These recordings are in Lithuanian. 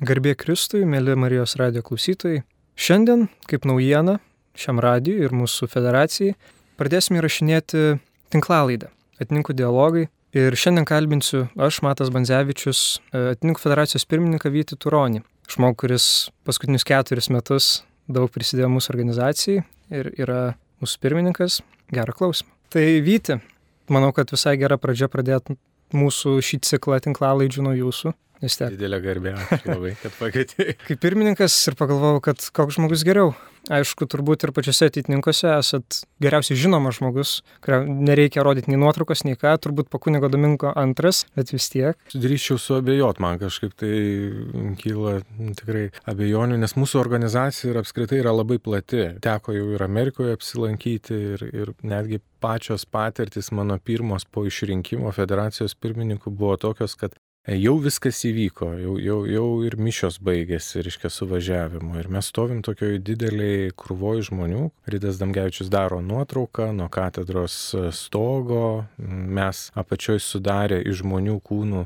Garbė Kristui, mėly Marijos radijo klausytojai. Šiandien, kaip naujiena šiam radijui ir mūsų federacijai, pradėsime įrašinėti tinklalaidę Ateitininkų dialogai. Ir šiandien kalbinsiu aš, Matas Bandzevičius, Ateitininkų federacijos pirmininką Vytį Turonį. Žmogų, kuris paskutinius 4 metus daug prisidėjo mūsų organizacijai ir yra mūsų pirmininkas. Gerą klausimą. Tai Vyti, manau, kad visai gera pradžia pradėti mūsų šį ciklą tinklalaidžių nuo jūsų. Didelė garbė, ačiū labai, kad pakvietei. Kaip pirmininkas ir pagalvojau, kad koks žmogus geriau. Aišku, turbūt ir pačiuose ateitininkuose esat geriausiai žinomas žmogus, kurio nereikia rodyti nei nuotraukos, nei ką, turbūt po kunigo Domingo II, bet vis tiek. Drįsčiau suabejot, man kažkaip tai kyla tikrai abejonių, nes mūsų organizacija ir apskritai yra labai plati. Teko jau ir Amerikoje apsilankyti ir netgi pačios patirtis mano pirmos po išrinkimo federacijos pirmininkų buvo tokios, kad jau viskas įvyko, jau ir mišios baigėsi, reiškia, suvažiavimu. Ir mes stovim tokioj dideliai krūvoj žmonių. Rydas Damgevičius daro nuotrauką nuo katedros stogo. Mes apačioj sudarė iš žmonių kūnų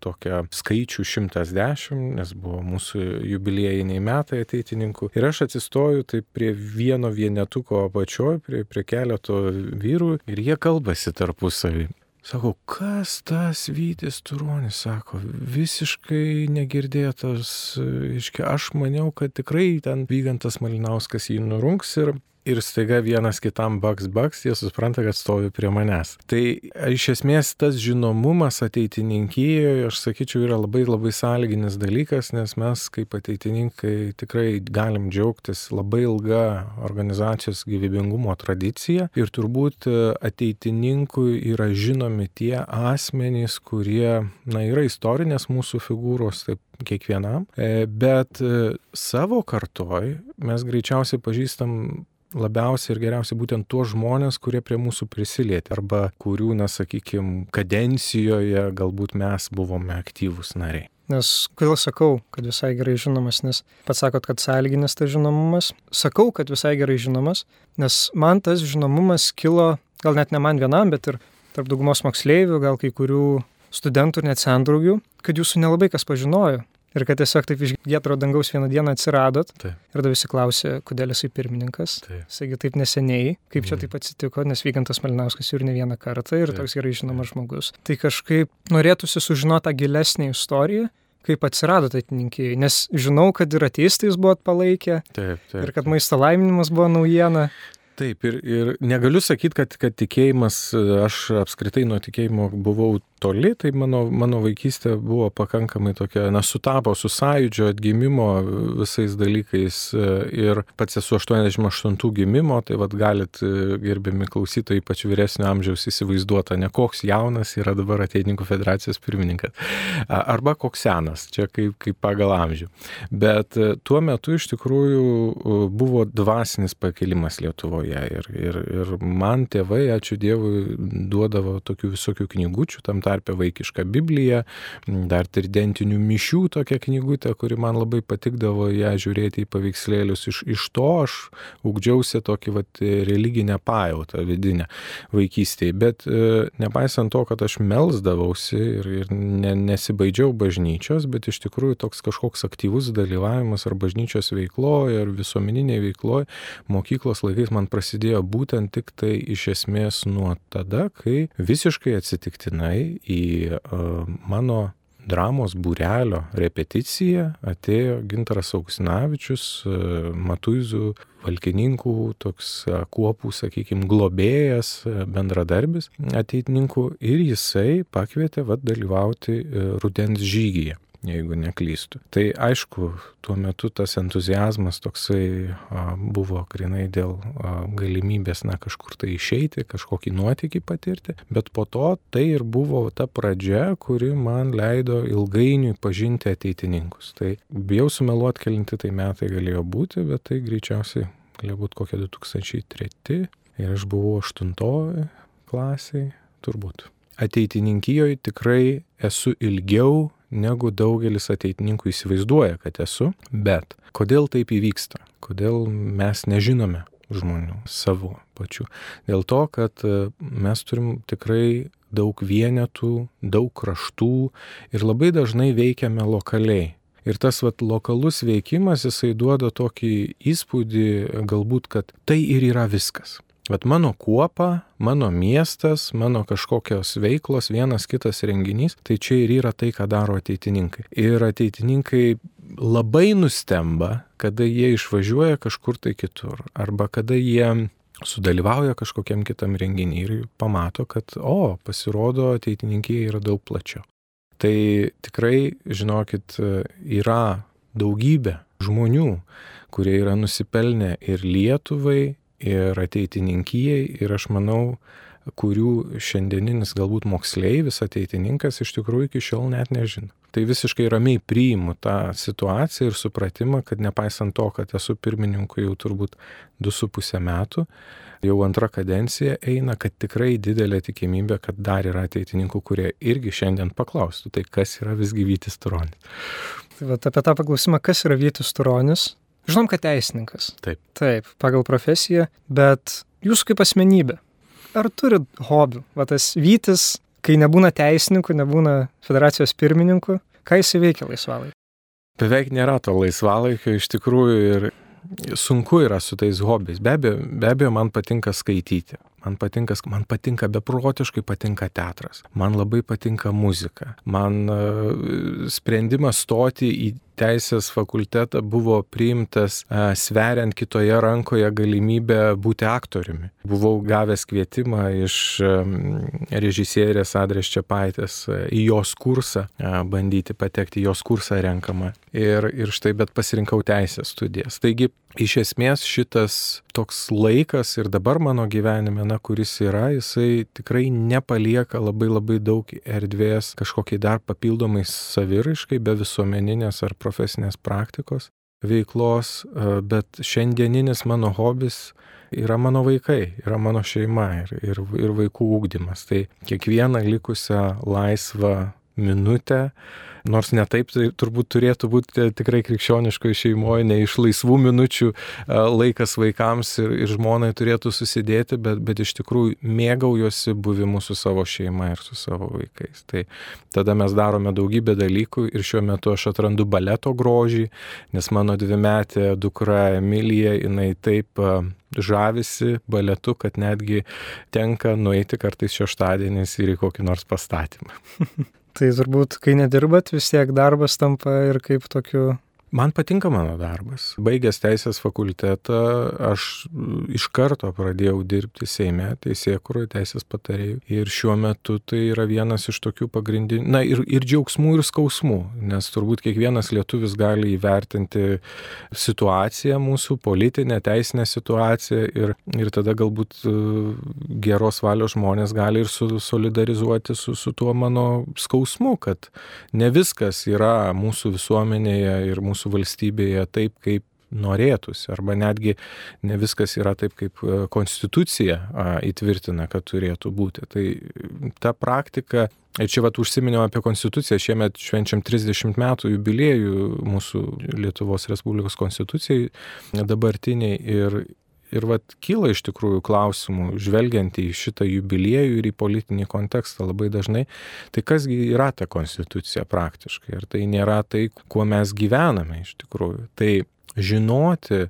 tokią skaičių 110, nes buvo mūsų jubiliejiniai metai ateitininkų. Ir aš atsistoju taip prie vieno vienetuko apačioj, prie keleto vyrų ir jie kalbasi tarpusavį. Sako, kas tas Vytis Turonis, sako, visiškai negirdėtas, aš maniau, kad tikrai ten Vygantas Malinauskas jį nurungs ir staiga vienas kitam baks, jie supranta, kad stovi prie manęs. Tai iš esmės tas žinomumas ateitininkijoje, aš sakyčiau, yra labai sąlyginis dalykas, nes mes kaip ateitininkai tikrai galim džiaugtis labai ilga organizacijos gyvybingumo tradicija ir turbūt ateitininkui yra žinomi tie asmenys, kurie, yra istorinės mūsų figūros, taip kiekvienam, bet savo kartoj mes greičiausiai pažįstam labiausiai ir geriausiai būtent tuos žmonės, kurie prie mūsų prisilietė arba kurių, sakykime, kadencijoje galbūt mes buvome aktyvūs nariai. Nes kodėl sakau, kad visai gerai žinomas, nes pats sakot, kad sąlyginis tas žinomumas. Sakau, kad visai gerai žinomas, nes man tas žinomumas kilo, gal net ne man vienam, bet ir tarp daugumos moksleivių, gal kai kurių studentų ir net sendraugių, kad jūsų nelabai kas pažinojo. Ir kad tiesiog taip iš giedro dangaus vieną dieną atsiradot. Taip. Ir tada visi klausė, kodėl jisai pirmininkas. Saigi taip neseniai, kaip čia taip atsitiko, nes Vygantas Malinauskas jau ir ne vieną kartą ir toks gerai žinomas žmogus. Tai kažkaip norėtųsi sužinoti tą gilesnę istoriją, kaip atsirado ateitininkijai, nes žinau, kad ir ateistai jūs buvot palaikę. Taip. Ir kad maisto laiminimas buvo naujiena. Taip, ir negaliu sakyti, kad tikėjimas, aš apskritai nuo tikėjimo buvau toli, tai mano vaikystė buvo pakankamai tokia, sutapo su sąjūdžio atgimimo visais dalykais ir pats esu 88 gimimo, tai galit, gerbiami klausytojai, ypač vyresnio amžiaus įsivaizduota, ne koks jaunas yra dabar Ateitininkų federacijos pirmininkas, arba koks senas, čia kaip pagal amžių. Bet tuo metu iš tikrųjų buvo dvasinis pakilimas Lietuvoje ir man tėvai, ačiū Dievui, duodavo tokių visokių knygučių, tam tarpe vaikišką Bibliją, dar tridentinių mišių tokią knygutę, kuri man labai patikdavo ją žiūrėti į paveikslėlius. Iš to aš ugdžiausi tokį religinę pajautą vidinę vaikystėje. Bet nepaisant to, kad aš melsdavausi ir nesibaidžiau bažnyčios, bet iš tikrųjų toks kažkoks aktyvus dalyvavimas ar bažnyčios veikloje, ar visuomeninėje veikloje mokyklos laikais man prasidėjo būtent tik tai iš esmės nuo tada, kai visiškai atsitiktinai į mano dramos būrelio repeticiją atėjo Gintaras Augustinavičius, Matuizų valkininkų, toks kuopų, sakykime, globėjas, bendradarbis ateitininkų ir jisai pakvietė dalyvauti rudens žygyje, jeigu neklystu. Tai aišku, tuo metu tas entuziazmas toksai buvo grinai dėl galimybės kažkur tai išeiti, kažkokį nuotykį patirti, bet po to tai ir buvo ta pradžia, kuri man leido ilgainiui pažinti ateitininkus. Tai bijau sumeluoti, kelinti tai metai galėjo būti, bet tai greičiausiai galėjo būti kokie 2003 ir aš buvau 8 klasiai, turbūt. Ateitininkijoje tikrai esu ilgiau negu daugelis ateitininkų įsivaizduoja, kad esu, bet kodėl taip įvyksta? Kodėl mes nežinome žmonių savo pačių? Dėl to, kad mes turim tikrai daug vienetų, daug kraštų ir labai dažnai veikiame lokaliai. Ir tas lokalus veikimas, jisai duoda tokį įspūdį, galbūt, kad tai ir yra viskas. Mano kuopa, mano miestas, mano kažkokios veiklos, vienas kitas renginys, tai čia ir yra tai, ką daro ateitininkai. Ir ateitininkai labai nustemba, kada jie išvažiuoja kažkur tai kitur, arba kada jie sudalyvauja kažkokiam kitam renginį ir pamato, kad, pasirodo, ateitininkija yra daug plačiau. Tai tikrai, žinokit, yra daugybė žmonių, kurie yra nusipelnę ir Lietuvai, ir ateitininkijai, ir aš manau, kurių šiandieninis galbūt moksleivis, ateitininkas iš tikrųjų iki šiol net nežino. Tai visiškai ramiai priimu tą situaciją ir supratimą, kad nepaisant to, kad esu pirmininku jau turbūt 2,5 metų, jau antra kadencija eina, kad tikrai didelė tikimybė, kad dar yra ateitininkų, kurie irgi šiandien paklaustų, tai kas yra visgi Vytis Turonis. Tai apie tą paklausimą, kas yra Vytis Turonis? Žinom, kad teisininkas. Taip, pagal profesiją, bet jūs kaip asmenybė, ar turit hobių? Tas Vytis, kai nebūna teisininku, nebūna federacijos pirmininku, ką jis veikia laisvalaikį? Beveik nėra to laisvalaikio iš tikrųjų ir sunku yra su tais hobiais. Be abejo, man patinka skaityti. Man patinka beprotiškai patinka teatras. Man labai patinka muzika. Man sprendimas stoti į teisės fakultetą buvo priimtas sveriant kitoje rankoje galimybę būti aktoriumi. Buvau gavęs kvietimą iš režisierės Adrės Čepaitės į jos kursą, bandyti patekti į jos kursą renkamą. Ir štai, bet pasirinkau teisės studijas. Taigi, iš esmės šitas toks laikas ir dabar mano gyvenime, kuris yra, jisai tikrai nepalieka labai daug erdvės kažkokiai dar papildomai saviraiškai, be visuomeninės ar profesinės praktikos veiklos, bet šiandieninis mano hobis yra mano vaikai, yra mano šeima ir vaikų ugdymas. Tai kiekvieną likusią laisvą minutę, nors ne taip tai turbūt turėtų būti tikrai krikščioniškoje šeimoje, ne iš laisvų minučių laikas vaikams ir žmonai turėtų susidėti, bet iš tikrųjų mėgaujuosi buvimu su savo šeima ir su savo vaikais. Tai tada mes darome daugybę dalykų ir šiuo metu aš atrandu baleto grožį, nes mano 2-metė dukra Emilija, jinai taip žavisi baletu, kad netgi tenka nueiti kartais šeštadieniais ir į kokį nors pastatymą. Tai turbūt, kai nedirbat, vis tiek darbas tampa ir kaip tokiu... Man patinka mano darbas. Baigęs teisės fakultetą, aš iš karto pradėjau dirbti Seime, teisėkūroje, teisės patarėjų. Ir šiuo metu tai yra vienas iš tokių pagrindinių, ir džiaugsmų, ir skausmų, nes turbūt kiekvienas lietuvis gali įvertinti situaciją mūsų, politinę, teisinę situaciją ir tada galbūt geros valios žmonės gali ir solidarizuoti su tuo mano skausmu, kad ne viskas yra mūsų visuomenėje ir mūsų valstybėje taip, kaip norėtųsi, arba netgi ne viskas yra taip, kaip konstitucija įtvirtina, kad turėtų būti. Tai ta praktika, ir čia užsiminiau apie konstituciją, šiemet švenčiam 30 metų jubiliejų mūsų Lietuvos Respublikos konstitucijai dabartiniai ir kyla iš tikrųjų klausimų, žvelgiant į šitą jubiliejų ir į politinį kontekstą labai dažnai, tai kasgi yra ta konstitucija praktiškai, ir tai nėra tai, kuo mes gyvename iš tikrųjų. Tai žinoti,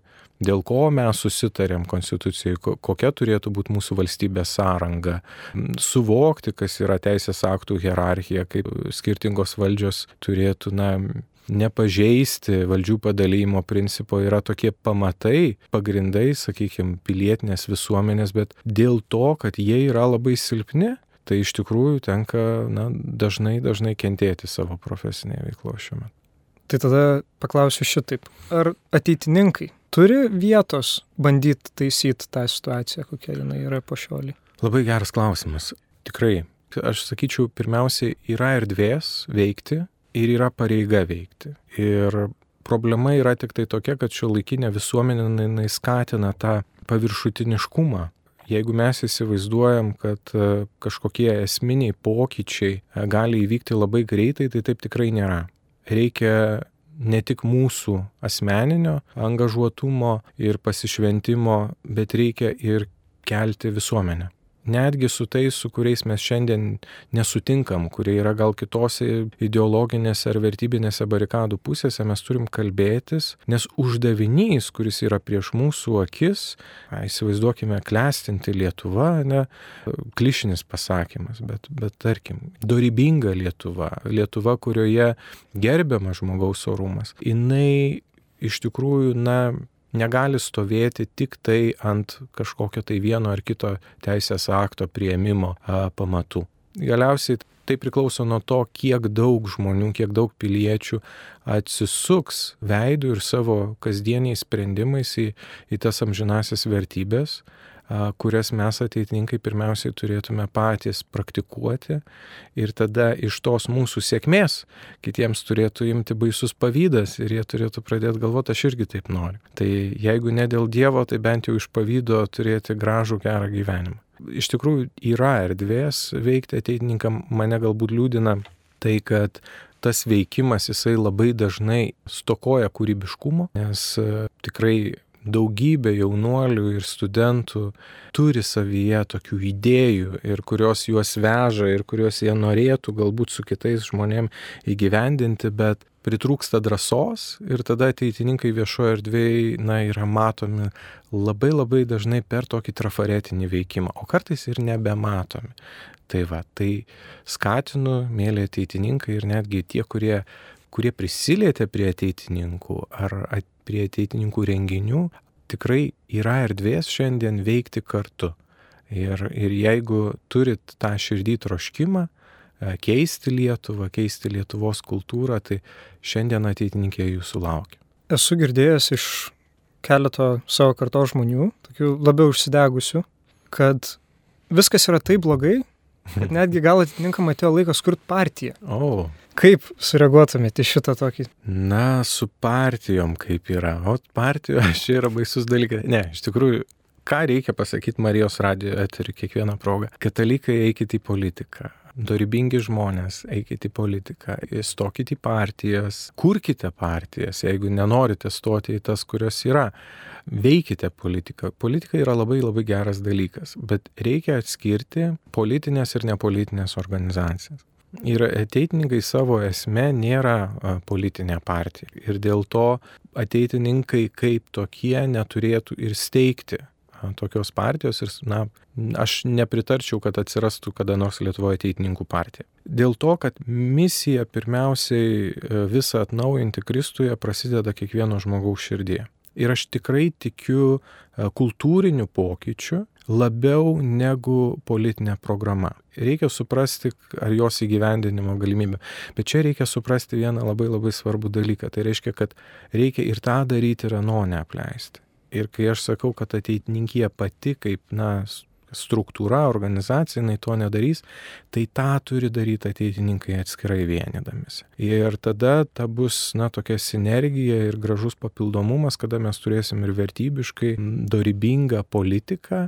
dėl ko mes susitarėm konstitucijai, kokia turėtų būti mūsų valstybės sąranga, suvokti, kas yra teisės aktų hierarchija, kaip skirtingos valdžios turėtų, nepažeisti valdžių padalijimo principo, yra tokie pamatai, pagrindai, sakykime, pilietinės visuomenės, bet dėl to, kad jie yra labai silpni, tai iš tikrųjų tenka dažnai kentėti savo profesinėje veikloje šiuo metu. Tai tada paklausiu šitaip. Ar ateitininkai turi vietos bandyti taisyti tą situaciją, kokia jinai yra po šiolį? Labai geras klausimas. Tikrai, aš sakyčiau, pirmiausiai yra erdvės veikti ir yra pareiga veikti. Ir problema yra tik tai tokia, kad šiuolaikinė visuomenė skatina tą paviršutiniškumą. Jeigu mes įsivaizduojam, kad kažkokie esminiai pokyčiai gali įvykti labai greitai, tai taip tikrai nėra. Reikia ne tik mūsų asmeninio angažuotumo ir pasišventimo, bet reikia ir kelti visuomenę. netgi su tais, su kuriais mes šiandien nesutinkam, kurie yra gal kitose ideologinėse ar vertybinėse barikadų pusėse, mes turim kalbėtis, nes uždavinys, kuris yra prieš mūsų akis, įsivaizduokime, klestinti Lietuva, ne, klišinis pasakymas, bet tarkim, dorybinga Lietuva, kurioje gerbiamas žmogaus orumas, jinai iš tikrųjų, negali stovėti tik tai ant kažkokio tai vieno ar kito teisės akto priėmimo pamatų. Galiausiai tai priklauso nuo to, kiek daug žmonių, kiek daug piliečių atsisuks veidų ir savo kasdieniais sprendimais į tas amžinasias vertybės, kurias mes ateitininkai pirmiausiai turėtume patys praktikuoti ir tada iš tos mūsų sėkmės kitiems turėtų imti baisus pavydas ir jie turėtų pradėti galvoti, aš irgi taip noriu. Tai jeigu ne dėl Dievo, tai bent jau iš pavydo turėti gražų, gerą gyvenimą. Iš tikrųjų yra erdvės veikti ateitininkam, mane galbūt liūdina tai, kad tas veikimas jisai labai dažnai stokoja kūrybiškumo, nes tikrai daugybė jaunuolių ir studentų turi savyje tokių idėjų ir kurios juos veža ir kurios jie norėtų galbūt su kitais žmonėm įgyvendinti, bet pritrūksta drąsos ir tada ateitininkai viešoje erdvėje yra matomi labai dažnai per tokį trafaretinį veikimą, o kartais ir nebematomi. Tai skatinu, mėly ateitininkai ir netgi tie, kurie prisilietė prie ateitininkų ar prie ateitininkų renginių, tikrai yra erdvės šiandien veikti kartu. Ir jeigu turit tą širdį troškimą, keisti Lietuvą, keisti Lietuvos kultūrą, tai šiandien ateitininkė jūsų laukia. Esu girdėjęs iš keleto savo kartos žmonių, tokių labiau užsidegusių, kad viskas yra taip blogai, kad netgi gal atitinkam atėjo laikas kurti partiją. Kaip sureaguotumėte į šitą tokį? Su partijom kaip yra. O partijos čia yra baisus dalykas. Ne, iš tikrųjų, ką reikia pasakyti Marijos radijo eteriu kiekvieną progą? Katalikai, eikite į politiką. Dorybingi žmonės, eikite į politiką. Stokite į partijas. Kurkite partijas, jeigu nenorite stoti į tas, kurios yra. Veikite politiką. Politika yra labai geras dalykas, bet reikia atskirti politinės ir nepolitinės organizacijas. Ir ateitininkai savo esme nėra politinė partija. Ir dėl to ateitininkai kaip tokie neturėtų ir steigti tokios partijos. Ir aš nepritarčiau, kad atsirastų kada nors Lietuvoje ateitininkų partija. Dėl to, kad misija pirmiausiai visą atnaujinti Kristuje prasideda kiekvieno žmogaus širdyje. Ir aš tikrai tikiu kultūriniu pokyčiu labiau negu politinė programa. Reikia suprasti, ar jos įgyvendinimo galimybė. Bet čia reikia suprasti vieną labai svarbų dalyką. Tai reiškia, kad reikia ir tą daryti, ir ano neapleisti. Ir kai aš sakau, kad ateitininkija pati kaip struktūra, organizacija, jinai to nedarys, tai tą turi daryti ateitininkai atskirai vienydamisi. Ir tada ta bus tokia sinergija ir gražus papildomumas, kada mes turėsim ir vertybiškai dorybingą politiką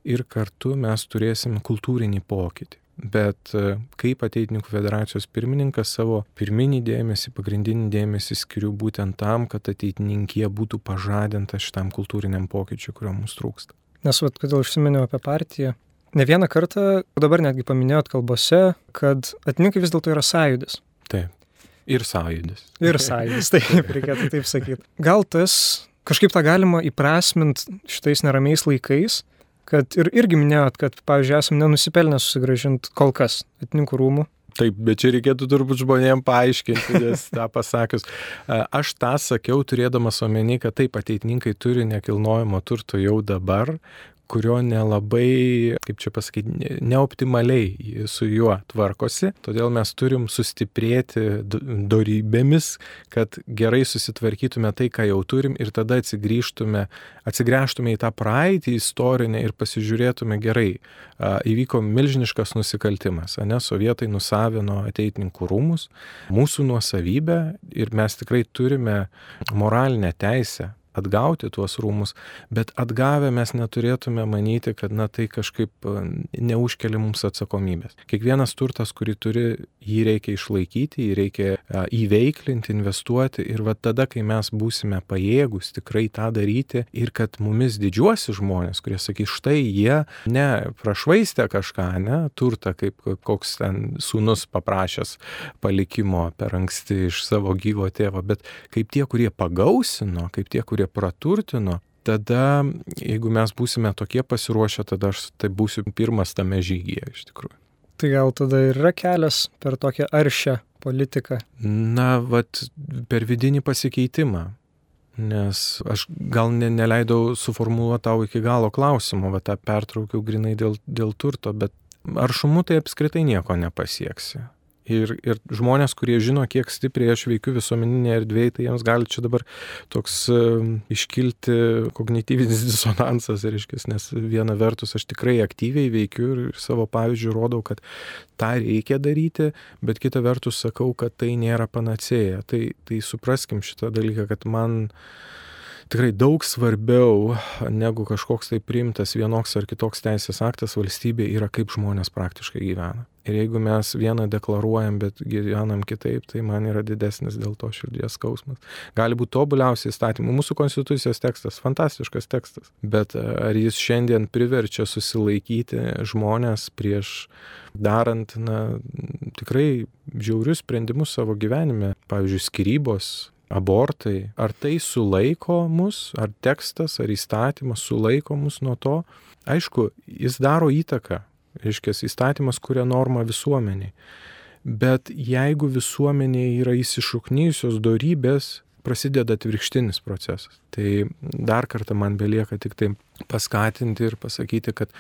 ir kartu mes turėsim kultūrinį pokytį. Bet kaip ateitininkų federacijos pirmininkas savo pirminį dėmesį, pagrindinį dėmesį skiriu būtent tam, kad ateitininkija būtų pažadinta šitam kultūriniam pokyčiui, kurio mums trūksta. Nes kodėl užsiminiau apie partiją. Ne vieną kartą, dabar netgi paminėjot kalbose, kad ateitininkai vis dėlto yra sąjūdis. Taip. Ir sąjūdis. Ir sąjūdis, taip, reikėtų taip sakyti. Gal tas kažkaip tą galima įprasminti šitais neramiais laikais, kad irgi minėjot, kad, pavyzdžiui, esam nenusipelnę susigrąžinti kol kas ateitininkų rūmų. Taip, bet čia reikėtų turbūt žmonėms paaiškinti, nes tą pasakius. Aš tą sakiau, turėdamas omeny, kad taip, ateitininkai turi nekilnojamo turto jau dabar, kurio nelabai, kaip čia pasakyti, neoptimaliai su juo tvarkosi. Todėl mes turim sustiprėti dorybėmis, kad gerai susitvarkytume tai, ką jau turim ir tada atsigręžtume į tą praeitį istorinę ir pasižiūrėtume gerai. Įvyko milžiniškas nusikaltimas, sovietai nusavino ateitininkų rūmus, mūsų nuosavybę ir mes tikrai turime moralinę teisę atgauti tuos rūmus, bet atgavę mes neturėtume manyti, kad tai kažkaip neužkelia mums atsakomybės. Kiekvienas turtas, kurį turi, jį reikia išlaikyti, jį reikia įveiklinti, investuoti ir tada, kai mes būsime pajėgus tikrai tą daryti ir kad mumis didžiuosi žmonės, kurie sakys, štai jie ne prašvaistė kažką, ne turtą, kaip koks ten sūnus paprašęs palikimo per anksti iš savo gyvo tėvo, bet kaip tie, kurie pagausino, kaip tie, kurie praturtino, tada, jeigu mes būsime tokie pasiruošę, tada aš tai būsiu pirmas tame žygyje iš tikrųjų. Tai gal tada ir yra kelias per tokią aršią politiką? Per vidinį pasikeitimą. Nes aš gal neleidau suformuluoti tau iki galo klausimo, tą pertraukiau grinai dėl turto, bet aršumu tai apskritai nieko nepasieksi. Ir žmonės, kurie žino, kiek stipriai aš veikiu visuomeninėje erdvėje, tai jiems gali čia dabar toks iškilti kognityvinis disonansas, nes viena vertus aš tikrai aktyviai veikiu ir savo pavyzdžių rodau, kad tą reikia daryti, bet kita vertus sakau, kad tai nėra panacėja. Tai supraskim šitą dalyką, kad man tikrai daug svarbiau negu kažkoks tai priimtas vienoks ar kitoks teisės aktas valstybė yra, kaip žmonės praktiškai gyvena. Ir jeigu mes vieną deklaruojam, bet gyvenam kitaip, tai man yra didesnis dėl to širdies skausmas. Gali būti tobuliausiai įstatymų. Mūsų konstitucijos tekstas, fantastiškas tekstas, bet ar jis šiandien priverčia susilaikyti žmonės prieš darant tikrai žiaurius sprendimus savo gyvenime, pavyzdžiui, skyrybos, abortai, ar tai sulaiko mus, ar tekstas, ar įstatymas sulaiko mus nuo to? Aišku, jis daro įtaką, įstatymas kuria normą visuomeniai, bet jeigu visuomenėje yra įsišaknijusios dorybės, prasideda atvirkštinis procesas. Tai dar kartą man belieka tik tai paskatinti ir pasakyti, kad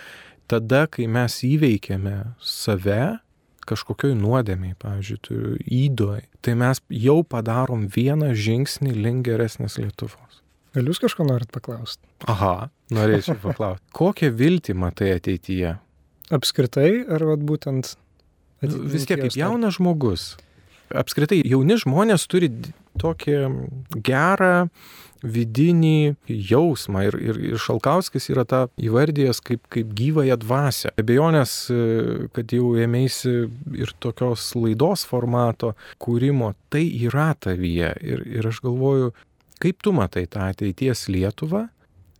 tada, kai mes įveikiame save, kažkokioj nuodėmiai, pavyzdžiui, įdoj, tai mes jau padarom vieną žingsnį link geresnės Lietuvos. Gal jūs kažko norit paklausti? Aha, norėčiau paklausti. Kokią viltį matai ateityje? Apskritai, ar būtent vis tiek kaip jaunas žmogus. Apskritai, jauni žmonės turi tokį gerą vidinį jausmą ir Šalkauskis yra tą įvardijęs kaip gyvąją dvasią. Abejonės, kad jau ėmėsi ir tokios laidos formato kūrimo, tai yra tavyje. Ir aš galvoju, kaip tu matai tą ateities Lietuvą?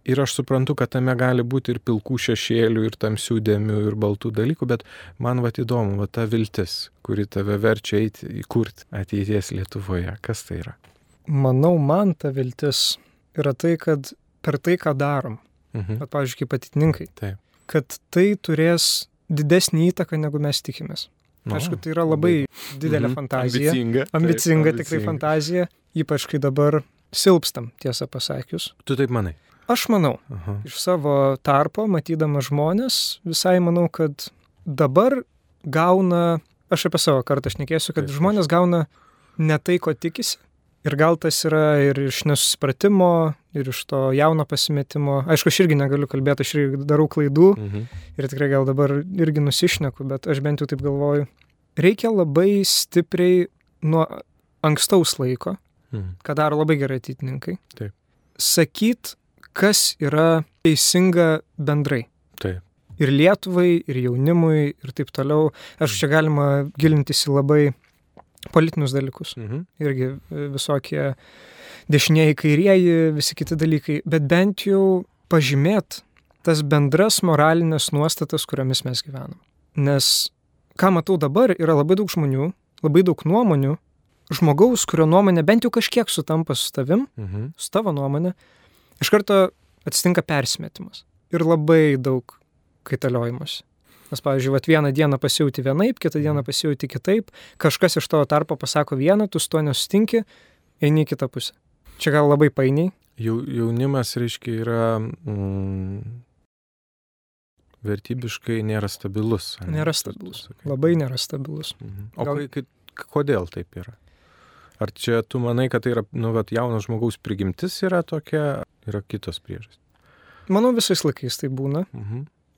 Ir aš suprantu, kad tame gali būti ir pilkų šešėlių, ir tamsių dėmių, ir baltų dalykų, bet man įdomu, ta viltis, kuri tave verčia eiti įkurti ateities Lietuvoje. Kas tai yra? Manau, man ta viltis yra tai, kad per tai, ką darom, pavyzdžiui, kaip ateitininkai, kad tai turės didesnį įtaką, negu mes tikimės. Aišku, tai yra labai didelė fantazija. Ambicinga tikrai fantazija, ypač kai dabar silpstam, tiesą pasakius. Tu taip manai? Aš manau, iš savo tarpo, matydamas žmonės, visai manau, kad dabar gauna, aš apie savo kartą šnekėsiu, kad žmonės gauna ne tai, ko tikisi. Ir gal tas yra ir iš nesusipratimo, ir iš to jauno pasimetimo. Aišku, aš irgi negaliu kalbėti, aš irgi darau klaidų ir tikrai gal dabar irgi nusišneku, bet aš bent jau taip galvoju. Reikia labai stipriai nuo ankstaus laiko, ką daro labai gerai ateitininkai, sakyt, kas yra teisinga bendrai. Taip. Ir Lietuvai, ir jaunimui, ir taip toliau. Aš čia galima gilintis į labai politinius dalykus. Irgi visokie dešinieji, kairieji, visi kiti dalykai. Bet bent jau pažymėt tas bendras moralinės nuostatas, kuriomis mes gyvenam. Nes, ką matau dabar, yra labai daug žmonių, labai daug nuomonių, žmogaus, kurio nuomonė bent jau kažkiek sutampa su tavim, su tavo nuomonė, iš karto atsitinka persimetimas. Ir labai daug kaitaliojimas. Nes, pavyzdžiui, vieną dieną pasijauti vienaip, kitą dieną pasijauti kitaip, kažkas iš tavo tarpo pasako vieną, tu su to nesutinki, eini į kitą pusę. Čia gal labai painiai. Jaunimas, reiškia, yra vertybiškai nėra stabilus. Nėra stabilus. Labai nėra stabilus. O kodėl taip yra? Ar čia tu manai, kad tai yra, jaunas žmogaus prigimtis yra tokia, yra kitos priežastys? Manau, visais laikais tai būna.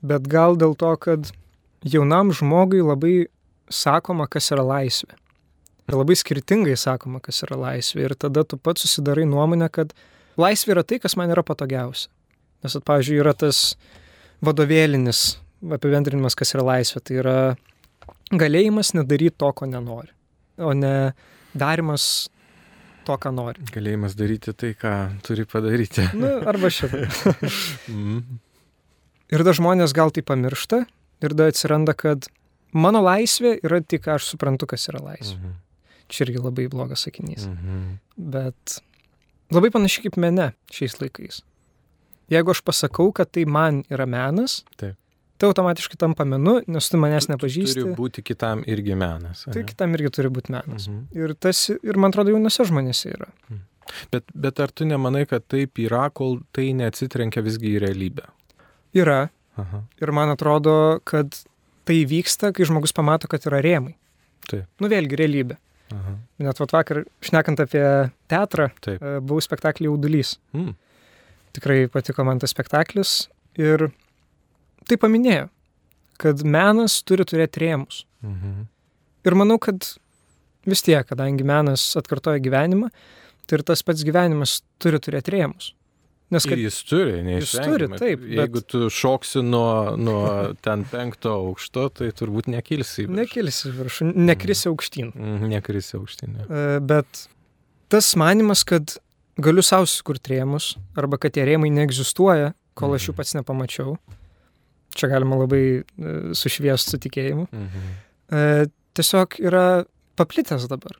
Bet gal dėl to, kad jaunam žmogui labai sakoma, kas yra laisvė. Ir labai skirtingai sakoma, kas yra laisvė. Ir tada tu pats susidarai nuomonę, kad laisvė yra tai, kas man yra patogiausia. Nes, pavyzdžiui, yra tas vadovėlinis apibendrinimas, kas yra laisvė. Tai yra galėjimas nedaryti to, ko nenori, o ne darimas to, ką nori. Galėjimas daryti tai, ką turi padaryti. Arba šitą. Ir da žmonės gal tai pamiršta ir da atsiranda, kad mano laisvė yra tik, aš suprantu, kas yra laisvė. Čia irgi labai blogas sakinys. Bet labai panašiai kaip mene šiais laikais. Jeigu aš pasakau, kad tai man yra menas, tai automatiškai tampa menu, nes tu manęs nepažįsti. Turi būti kitam irgi menas. Tai kitam irgi turi būti menas. Ir man atrodo, jaunose žmonėse yra. Bet ar tu nemanai, kad taip yra, kol tai neatsitrenkia visgi į realybę? Yra. Ir man atrodo, kad tai vyksta, kai žmogus pamato, kad yra rėmai. Taip. Vėlgi realybė. Net vakar, šnekant apie teatrą, buvau spektaklį Jaudulys. Tikrai patiko man tas spektaklis ir tai paminėjo, kad menas turi turėti rėmus. Ir manau, kad vis tiek, kadangi menas atkartoja gyvenimą, tai ir tas pats gyvenimas turi turėti rėmus. Nes kad jis turi, neišvengiamai. Taip. Jeigu tu šoksi nuo ten 5 aukšto, tai turbūt nekilsi į viršų. Nekilsi į viršų, nekrisi aukštyn. Nekrisi aukštyn. Bet tas manimas, kad galiu savo sukurti rėmus, arba kad tie rėmai neegzistuoja, kol aš jų pats nepamačiau. Čia galima labai sušviesti su tikėjimu. Tiesiog yra paplitęs dabar.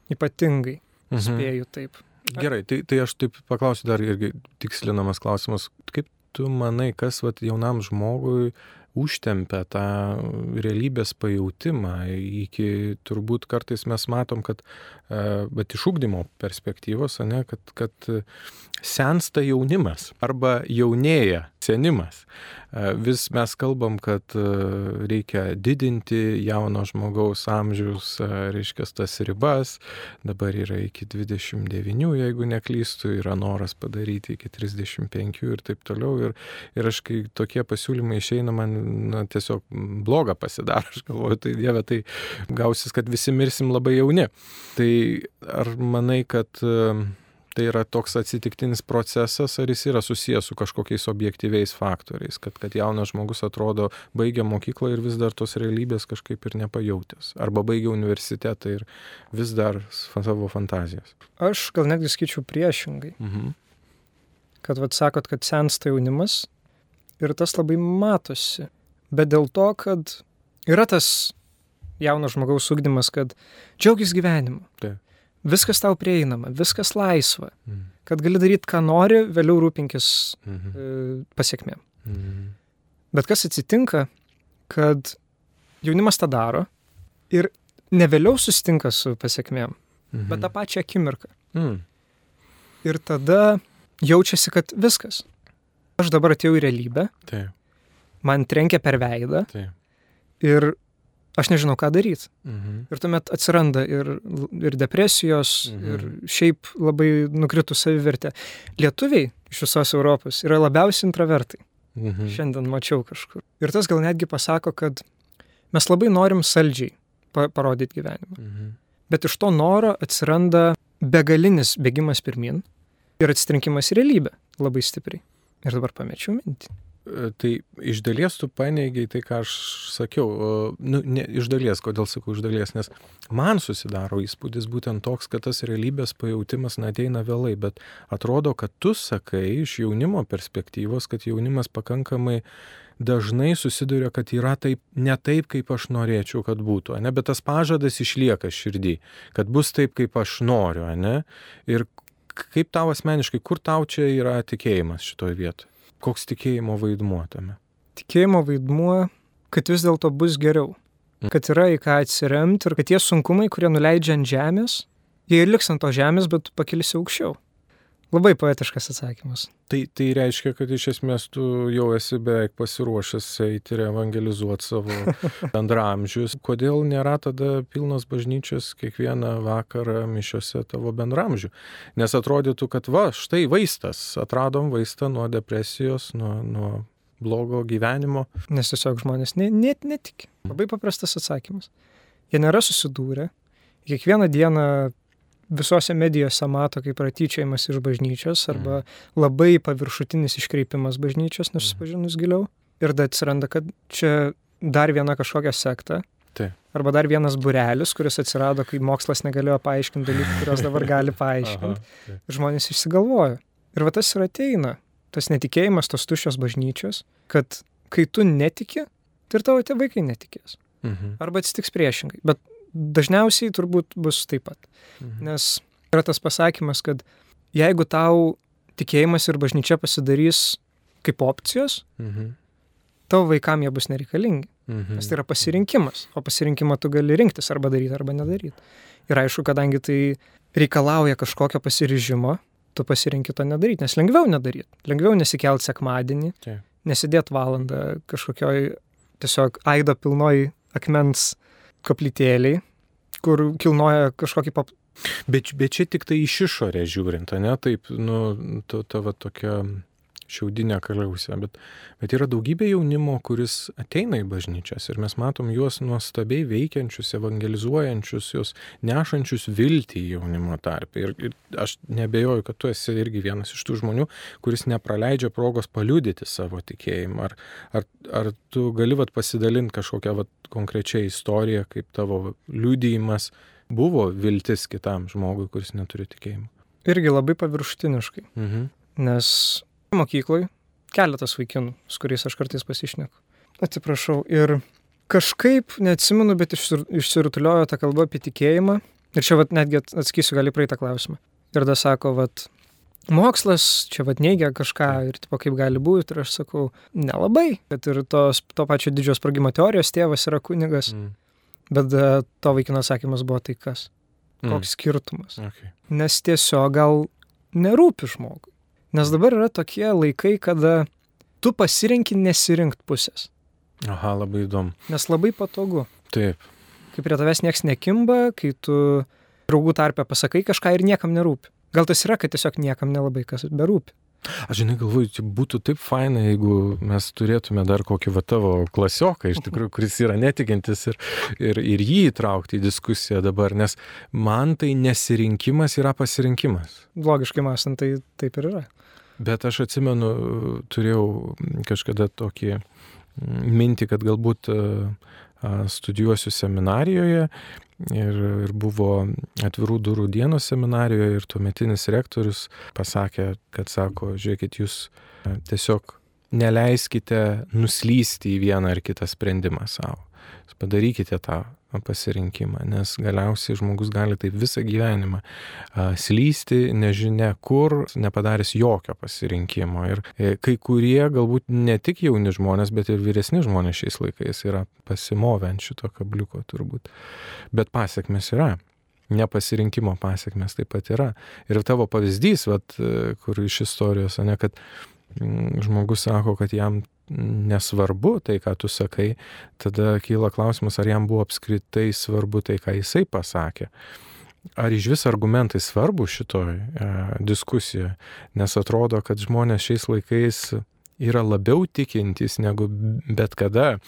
Ypatingai. Spėju taip. Gerai, tai aš taip paklausiu dar irgi tikslinamas klausimas. Kaip tu manai, kas jaunam žmogui užtempia tą realybės pajautimą iki, turbūt kartais mes matom, kad bet iš ugdymo perspektyvos, kad sensta jaunimas arba jaunėja senimas. Vis mes kalbam, kad reikia didinti jauno žmogaus amžiaus, reiškia, tas ribas. Dabar yra iki 29, jeigu neklystu, yra noras padaryti iki 35 ir taip toliau. Ir aš, kai tokie pasiūlymai išeina, man tiesiog bloga pasidaro. Aš galvoju, tai Dieve, tai gausis, kad visi mirsim labai jauni. Tai ar manai, kad tai yra toks atsitiktinis procesas, ar jis yra susijęs su kažkokiais objektyviais faktoriais, kad jaunas žmogus atrodo baigia mokyklą ir vis dar tos realybės kažkaip ir nepajautęs, arba baigia universitetą ir vis dar savo fantazijas? Aš gal netgi skaičiau priešingai. Kad sakot, kad sensta jaunimas ir tas labai matosi, bet dėl to, kad yra tas jauno žmogaus ugdymas, kad džiaugis gyvenimu. Taip. Viskas tau prieinama, viskas laisva, kad gali daryti, ką nori, vėliau rūpinkis pasiekmėm. Bet kas atsitinka, kad jaunimas tą daro ir ne vėliau susitinka su pasiekmėm, bet tą pačią akimirką. Ir tada jaučiasi, kad viskas. Aš dabar atėjau į realybę, man trenkia per veidą ir aš nežinau, ką daryti. Ir tuomet atsiranda ir depresijos, ir šiaip labai nukritų savivertė. Lietuviai iš visos Europos yra labiausiai intravertai. Šiandien mačiau kažkur. Ir tas gal netgi pasako, kad mes labai norim saldžiai parodyti gyvenimą. Bet iš to noro atsiranda begalinis bėgimas pirmin ir atsitrenkimas į realybę labai stipriai. Ir dabar pamečiau mintį. Tai iš dalies tu paneigiai tai, ką aš sakiau. Ne iš dalies, kodėl sakau iš dalies, nes man susidaro įspūdis būtent toks, kad tas realybės pajautimas ateina vėlai, bet atrodo, kad tu sakai iš jaunimo perspektyvos, kad jaunimas pakankamai dažnai susiduria, kad yra taip, ne taip, kaip aš norėčiau, kad būtų, ne? Bet tas pažadas išlieka širdį, kad bus taip, kaip aš noriu, ne? Ir kaip tau asmeniškai, kur tau čia yra tikėjimas šitoje vietoje? Koks tikėjimo vaidmuo tame? Tikėjimo vaidmuo, kad vis dėlto bus geriau. Kad yra į ką atsiremti ir kad tie sunkumai, kurie nuleidžia ant žemės, jie ir liks ant to žemės, bet tu pakilsi aukščiau. Labai poetiškas atsakymas. Tai reiškia, kad iš esmės tu jau esi beveik pasiruošęs eiti ir evangelizuoti savo bendramžius. Kodėl nėra tada pilnos bažnyčios kiekvieną vakarą mišiose tavo bendramžių? Nes atrodytų, kad štai vaistas. Atradom vaistą nuo depresijos, nuo blogo gyvenimo. Nes tiesiog žmonės net netiki. Labai paprastas atsakymas. Jie nėra susidūrę. Kiekvieną dieną visose medijose mato kaip yra tyčiojimas iš bažnyčios arba labai paviršutinis iškreipimas bažnyčios, nesusipažinus giliau. Ir tada atsiranda, kad čia dar viena kažkokia sekta. Taip. Arba dar vienas būrelis, kuris atsirado, kai mokslas negalėjo paaiškinti dalykų, kurios dabar gali paaiškinti. Ir žmonės išsigalvojo. Ir va tas ir ateina, tas netikėjimas, tos tuščios bažnyčios, kad kai tu netiki, tai ir tavo tie vaikai netikės. Arba atsitiks priešingai. Bet dažniausiai turbūt bus taip pat. Nes yra tas pasakymas, kad jeigu tau tikėjimas ir bažnyčia pasidarys kaip opcijos, tavo vaikam jie bus nereikalingi. Nes tai yra pasirinkimas, o pasirinkimą tu gali rinktis arba daryti, arba nedaryti. Ir aišku, kadangi tai reikalauja kažkokio pasiryžimo, tu pasirinki to nedaryti, nes lengviau nedaryti. Lengviau nesikelt sekmadienį, nesidėt valandą kažkokioj tiesiog aido pilnoj akmens koplytėliai, kur kilnoja kažkokį Bet čia tik tai iš išorę žiūrint, ne? Taip, tavo tokia šiaudinė kaliausė, bet yra daugybė jaunimo, kuris ateina į bažnyčias ir mes matom juos nuostabiai veikiančius, evangelizuojančius, juos nešančius viltį jaunimo tarpe. Ir aš nebejoju, kad tu esi irgi vienas iš tų žmonių, kuris nepraleidžia progos paliudyti savo tikėjimą. Ar tu gali pasidalinti kažkokią konkrečią istoriją, kaip tavo liudijimas buvo viltis kitam žmogui, kuris neturi tikėjimo? Irgi labai paviršutiniškai, nes mokykloj keletas vaikinų, su kuriais aš kartais pasišneku. Atsiprašau. Ir kažkaip, neatsimenu, bet išsirutuliojo ta kalba apie tikėjimą. Ir čia netgi atsakysiu gali praeitą klausimą. Ir tada sako, mokslas čia neigia kažką ir kaip gali būti. Ir aš sakau, nelabai. Bet ir to pačio didžiojo sprogimo teorijos tėvas yra kunigas. Bet to vaikino atsakymas buvo tai kas? Koks skirtumas? Okay. Nes tiesiog gal nerūpi žmogui. Nes dabar yra tokie laikai, kada tu pasirenki nesirinkti pusės. Aha, labai įdomu. Nes labai patogu. Taip. Kai prie tavęs nieks nekimba, kai tu draugų tarpe pasakai kažką ir niekam nerūpi. Gal tas yra, kad tiesiog niekam nelabai kas berūpi. Aš galvoju, būtų taip faina, jeigu mes turėtume dar kokį tavo klasioką, iš tikrųjų, kuris yra netikintis ir jį įtraukti į diskusiją dabar, nes man tai nesirinkimas yra pasirinkimas. Logiškai mąstant, tai taip ir yra. Bet aš atsimenu, turėjau kažkada tokį mintį, kad galbūt studijuosiu seminarijoje ir buvo atvirų durų dienos seminarijoje ir tuometinis rektorius pasakė, kad sako, žiūrėkit, jūs tiesiog neleiskite nuslysti į vieną ar kitą sprendimą savo. Padarykite tą pasirinkimą, nes galiausiai žmogus gali taip visą gyvenimą slysti, nežinia kur, nepadaręs jokio pasirinkimo. Ir kai kurie, galbūt ne tik jauni žmonės, bet ir vyresni žmonės šiais laikais yra pasimovę ant šito kabliuko turbūt. Bet pasiekmes yra. Nepasirinkimo pasiekmes taip pat yra. Ir tavo pavyzdys, kur iš istorijos, kad žmogus sako, kad jam nesvarbu tai, ką tu sakai, tada kyla klausimas, ar jam buvo apskritai svarbu tai, ką jisai pasakė. Ar iš vis argumentai svarbu šitoj diskusijoje, nes atrodo, kad žmonės šiais laikais yra labiau tikintys negu bet kada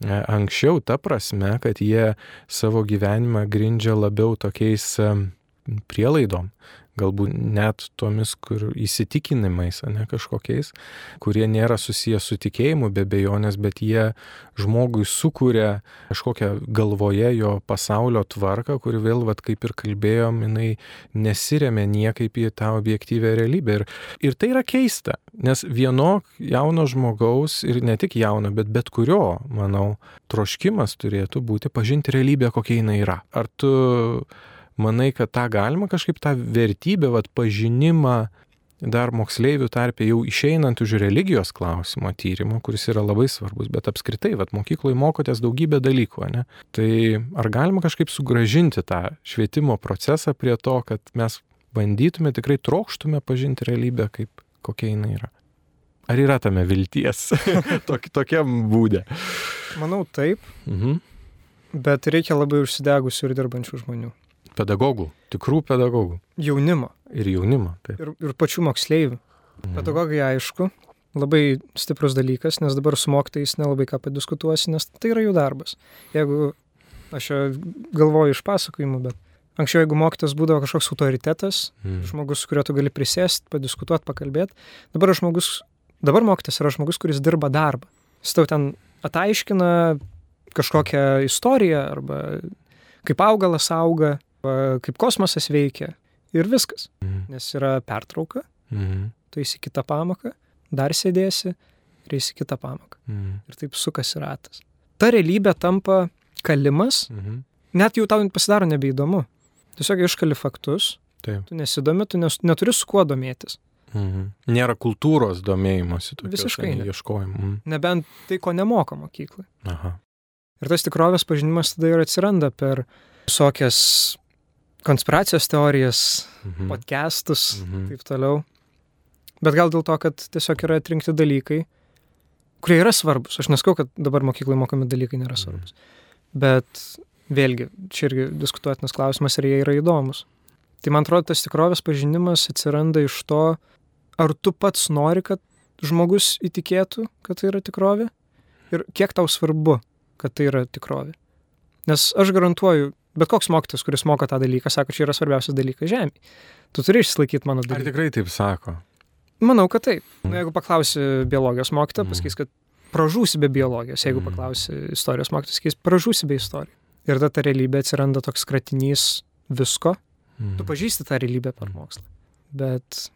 anksčiau, ta prasme, kad jie savo gyvenimą grindžia labiau tokiais prielaidom, galbūt net tomis, kur įsitikinimais, kažkokiais, kurie nėra susijęs su tikėjimu be abejonės, bet jie žmogui sukuria kažkokią galvoje jo pasaulio tvarką, kuri vėl, kaip ir kalbėjom, jinai nesiremia niekaip į tą objektyvę realybę. Ir tai yra keista, nes vieno jauno žmogaus, ir ne tik jauno, bet kurio, manau, troškimas turėtų būti pažinti realybę, kokia jinai yra. Ar tu manai, kad tą galima kažkaip tą vertybę, pažinimą dar moksleivių tarpe jau išeinant už religijos klausimo tyrimo, kuris yra labai svarbus, bet apskritai, mokykloje mokotės daugybę dalykų, ne? Tai ar galima kažkaip sugrąžinti tą švietimo procesą prie to, kad mes bandytume, tikrai trokštume pažinti realybę, kaip kokia jinai yra? Ar yra tame vilties tokiam būde? Manau, taip, bet reikia labai užsidegusių ir dirbančių žmonių. Pedagogų, tikrų pedagogų. Jaunimo. Ir jaunimo, taip. Ir pačių moksleivių. Pedagogai, aišku, labai stiprus dalykas, nes dabar su mokytojais nelabai ką padiskutuosi, nes tai yra jų darbas. Jeigu aš galvoju iš pasakojimų, bet Anksčiau, jeigu mokytas būdavo kažkoks autoritetas, žmogus, su kuriuo tu gali prisėsti, padiskutuoti, pakalbėti, dabar mokytas yra žmogus, kuris dirba darbą. Jis tau ten ataiškina kažkokią istoriją, arba kaip augalas auga, arba kaip kosmosas veikia ir viskas. Nes yra pertrauka, tu eisi kitą pamoką, dar sėdėsi ir eisi kitą pamoką. Ir taip sukasi ratas. Ta realybė tampa kalimas, net jau tau pasidaro nebeįdomu. Tiesiog iškali faktus, Taip. tu nesidomi, tu neturi su kuo domėtis. Nėra kultūros domėjimosi, Visiškai ne. ieškojimų. Nebent tai, ko nemoko mokyklai. Aha. Ir tas tikrovės pažinimas tada ir atsiranda per visokias konspiracijos teorijas, podcastus, taip toliau. Bet gal dėl to, kad tiesiog yra atrinkti dalykai, kurie yra svarbus. Aš neskau, kad dabar mokyklai mokomi dalykai nėra svarbus. Bet vėlgi, čia irgi diskutuotinas klausimas, ar jie yra įdomus. Tai man atrodo, tas tikrovės pažinimas atsiranda iš to, ar tu pats nori, kad žmogus įtikėtų, kad tai yra tikrovė, ir kiek tau svarbu, kad tai yra tikrovė. Nes aš garantuoju, bet koks mokytas, kuris moko tą dalyką, sako, čia yra svarbiausias dalykas žemėje. Tu turi išsilaikyti mano dalyką. Ar tikrai taip sako? Manau, kad taip. Jeigu paklausi biologijos mokytoją, pasakys, kad pražūsi be biologijos. Jeigu paklausi istorijos mokytoją, pasakys, pražūsi be istorijos. Ir tada ta realybė atsiranda toks kratinys visko. Tu pažįsti tą realybę per mokslą. Bet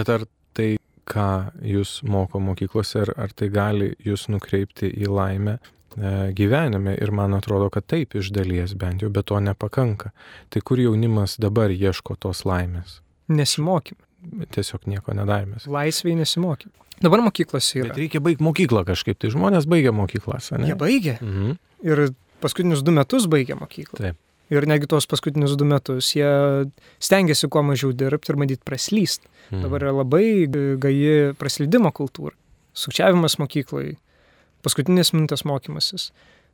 ar tai, ką jūs moko mokyklose, ar tai gali jūs nukreipti į laimę gyvenime? Ir man atrodo, kad taip iš dalies bent jau, bet to nepakanka. Tai kur jaunimas dabar ieško tos laimės? Nesimokime. Tiesiog nieko nedarėmės. Laisviai nesimokime. Dabar mokyklos yra. Bet reikia baigti mokyklą kažkaip. Tai žmonės baigia mokyklas, ne? Jie baigia. Ir paskutinius 2 metus baigia mokyklą. Taip. Ir negi tos paskutinius 2 metus jie stengiasi kuo mažiau dirbti ir bandyti praslysti. Dabar yra labai gaji praslydimo kultūra. Sukčiavimas mokyklai, paskutinės minutės mokymasis,